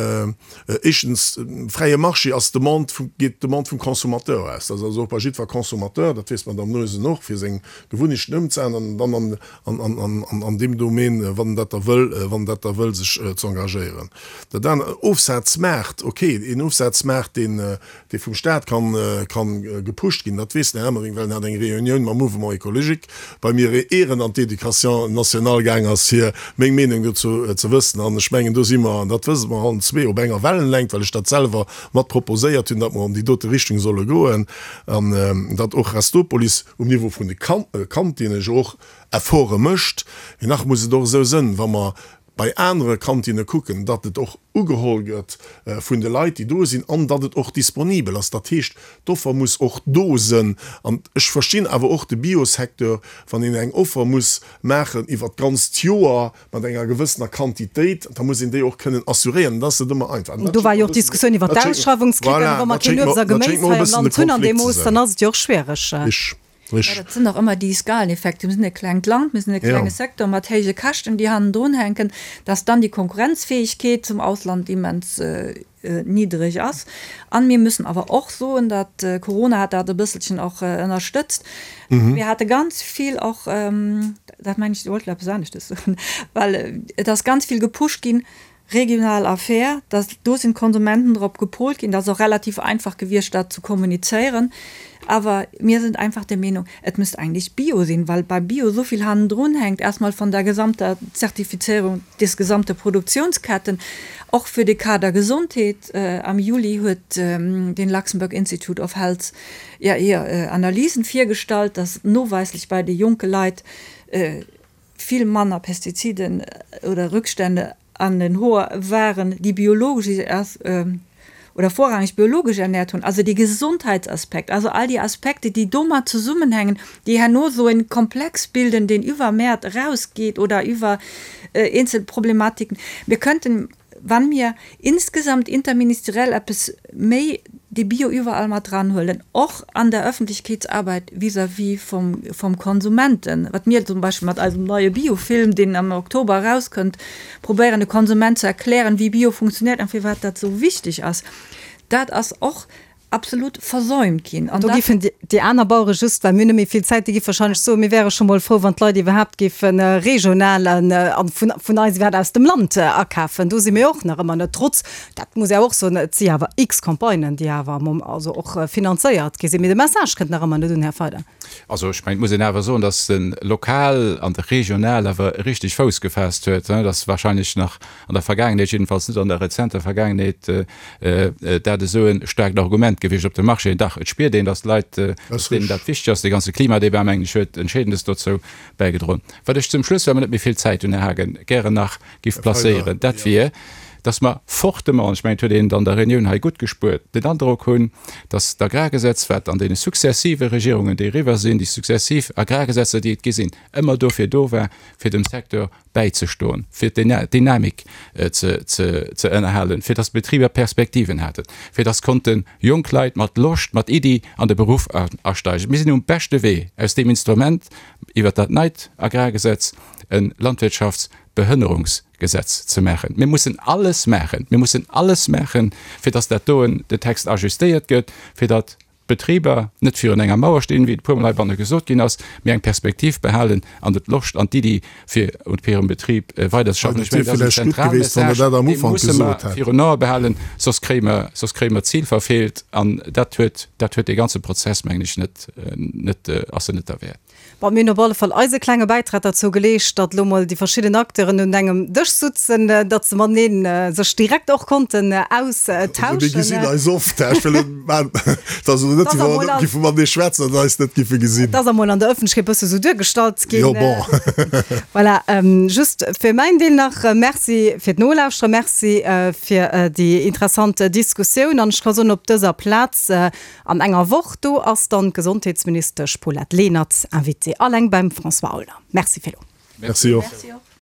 éischtens, fräie Marché ass d'Demande vum, geet d'Demande vum Consommateur aus. Dat ass also och bei jiddwer Consommateur, dat weess d'Madame Noesen och, fir seng Gewunnechten ëmzeänneren an dann an, an, an, an, an deem Domaine, wann en dat da wëll, wann en dat da wëll, sech ze engagéieren. Dat anert, Ofsazmaart, ok, een Ofsazmaart, deen, dee vum Staat kann, kann gepusht ginn, dat weess den Här Emering, well en hat eng Reunioun mam Mouvement écologique bei mir, ier en an d'Education nationale gaang ass, fir meng Meenung dozou ze wëssen. An ech mengen, do si mer, an dat wësse mer allen zwee, op enger Wellenlängt, well ech dat selwer mat proposéiert hunn, datt mer an déi dote Richtung solle goen an datt och Restopolis um Niveau vun de Kantinnen jo och Efforte mécht. Mee nach muss et och esou sënn, wa mer bei anere Kantinne kucken, datt et och ugeholl gëtt vun de Leit, déi do sinn, an datt et och disponibel ass. Dat heescht, d'Offer muss och do sënn. An ech verstinn awer och de Biosecteur, wann een eng Offer muss maachen iwwert d'ganzt Joer mat enger gewëssener Quantitéit, da muss een déi och kënnen assuréieren. Dat ass net ëmmer einfach. Do war jo och d'Diskussioun iwwert d'Ausschreiwungskrittären. Wa mer keen Uebst a Geméis hei am Land hunn an deem Mooss, dann ass et jo och schwiereg. Ja, dat sinn och ëmmer déi Skaleneffekte. Mir sinn e klengt Land, mir sinn e klenge Secteur mat héije Käschten, déi hannendrun hänken, dass dann déi Konkurrenzfähigkeet zum Ausland immens niddreg ass. An mir müssen awer och soen, datt, Corona hat dat e bësselchen och ënnerstëtzt, mir hate ganz vill och, dat mengen ech, Dir wollt elo eppes aneschtes soen, well et ass ganz vill gepusht ginn, regional Affär, dass do sinn d'Konsumenten drop gepolt ginn, dat ass och relativ einfach gewiescht dat ze kommunizéieren, awer mir sind einfach der Meenung, et müsst eigentlich Bio sinn, well bei Bio esou vill hannendrun hänkt, erstmal von der gesamter Zertifizierung des gesamte Produktionsketten, och fir de Kader Gesondheet. Am Juli huet den Luxembourg Institute of Health ja hir Analysen virgestallt, dass noweislech bei de jonke Leit vill manner Pestiziden oder Rückstände an den Hoer waren, déi biologesch oder vorrangig biologesch ernährt hunn. Also dee Gesondheitsaspekt, also all déi Aspekte, déi domat zesummenhängen, déi herno esou en Komplex bilden, deen iwwer Mäert erausgeet oder iwwer eenzel Problematiken. Mir könnten Wann mir insgesamt interministeriell eppes méi de Bio iwwerall mat dranhuelen, och an der Öffentlichkeetsarbeit vis-à-vis vom, vom Konsumenten, wat mir zum Beispill mat eisem neie Biofilm, deen am Oktober erauskënnt, probéieren de Konsument ze erklären, wéi Bio funktioniert an firwat dat esou wichteg ass, dat ass och absolut versäumt ginn. An do géifen déi aner Bauere just, well mir hunn net méi vill Zäit, déi géife wahrscheinlech soen, mir wäre scho mol frou, wann d'Leit iwwerhaapt géife regional a vun eis iwwerhaapt aus dem Land akafen. Do si mir och nach ëmmer net, trotz, dat muss ee och soen, et si awer x Campagnen, déi awer am also och finanzéiert gi sinn. Mee de Message kënnt nach ëmmer net un, Här Feider. Also ech mengen, et muss een awer soen, datt de Lokal an de Regional awer richteg Fouss gefaasst huet. Dat ass wahrscheinlech nach an der Vergaangenheet, jiddefalls net an der rezenter Vergaangenheet, dat esou e staarkt Argument gewiescht op dem Marché. Dach, et spiert een, datt d'Leit, datt deenen dat wichteg ass. Dee ganze Klimadebat, mengen ech, huet Entscheedendes dozou bäigedroen. Wat ech zum Schluss, well mer net méi vill Zäit hunn, Här Haagen, gären nach giff placéieren, dat wier, datt mer fortement, an ech mengen, et huet een et an der Reunioun hei gutt gespuert, den Androck hunn, datt d'Agrargesetz, wat an deene successive Regierungen, déi eriwwer sinn, déi successiv Agrargesetzer, déi et gi sinn, ëmmer dofir do war, fir dem Secteur bäizestoen, fir d'Dynamik ze ënnerhalen, fir datt d'Betriber Perspektiven haten, fir datt konnte jonk Leit mat Loscht, mat Iddi an de Beruff asteigen. Mir sinn um beschte Wee, aus deem Instrument iwwert dat neit Agrargesetz e Landwirtschaftsbehënnerungsgesetz ze maachen. Mir mussen alles maachen, mir mussen alles maachen, fir datt dat doen, de Text ajustéiert gëtt, fir datt d'Betriber net virun enger Mauer stinn, wéi et e puermol heibanne gesot ginn ass, mee eng Perspektiv behalen an de d'Loscht an d'Iddi fir un hirem Betrib weiderzeschaffen. Ech mengen, dat ass en zentrale Message, dee musse mer virun Ae behalen, soss kréie mer, soss kréie mer d'Zil verfeelt an dat huet, dat huet dee ganze Prozess, mengen ech, net, net, ass en net derwäert. Bon, mir hunn op alle Fall eise klenge Bäitrag derzou geleescht, datt elo mol déi verschidden Acteuren un engem Dësch sutzen, datt se mateneen sech direkt och konnten austauschen. Also mir gesinn eis oft, ech wëll et maachen. Et ass elo net, wéi wa mer net giffe matenee schwätzen an eis net giffe gesinn. Et ass emol an der Ëffentlechkeet e bësse sou duergestallt ginn. Jo, bon. Voilà, just fir mäin Deel nach, Merci fir d'Nolauschteren, Merci fir déi interessant Diskussioun. An ech ka soen, op dëser Plaz an enger Woch, do ass dann d'Gesondheetsministesch Paulette Lenert Invitée, alleng beim François Aulner. Merci fir elo. Merci och.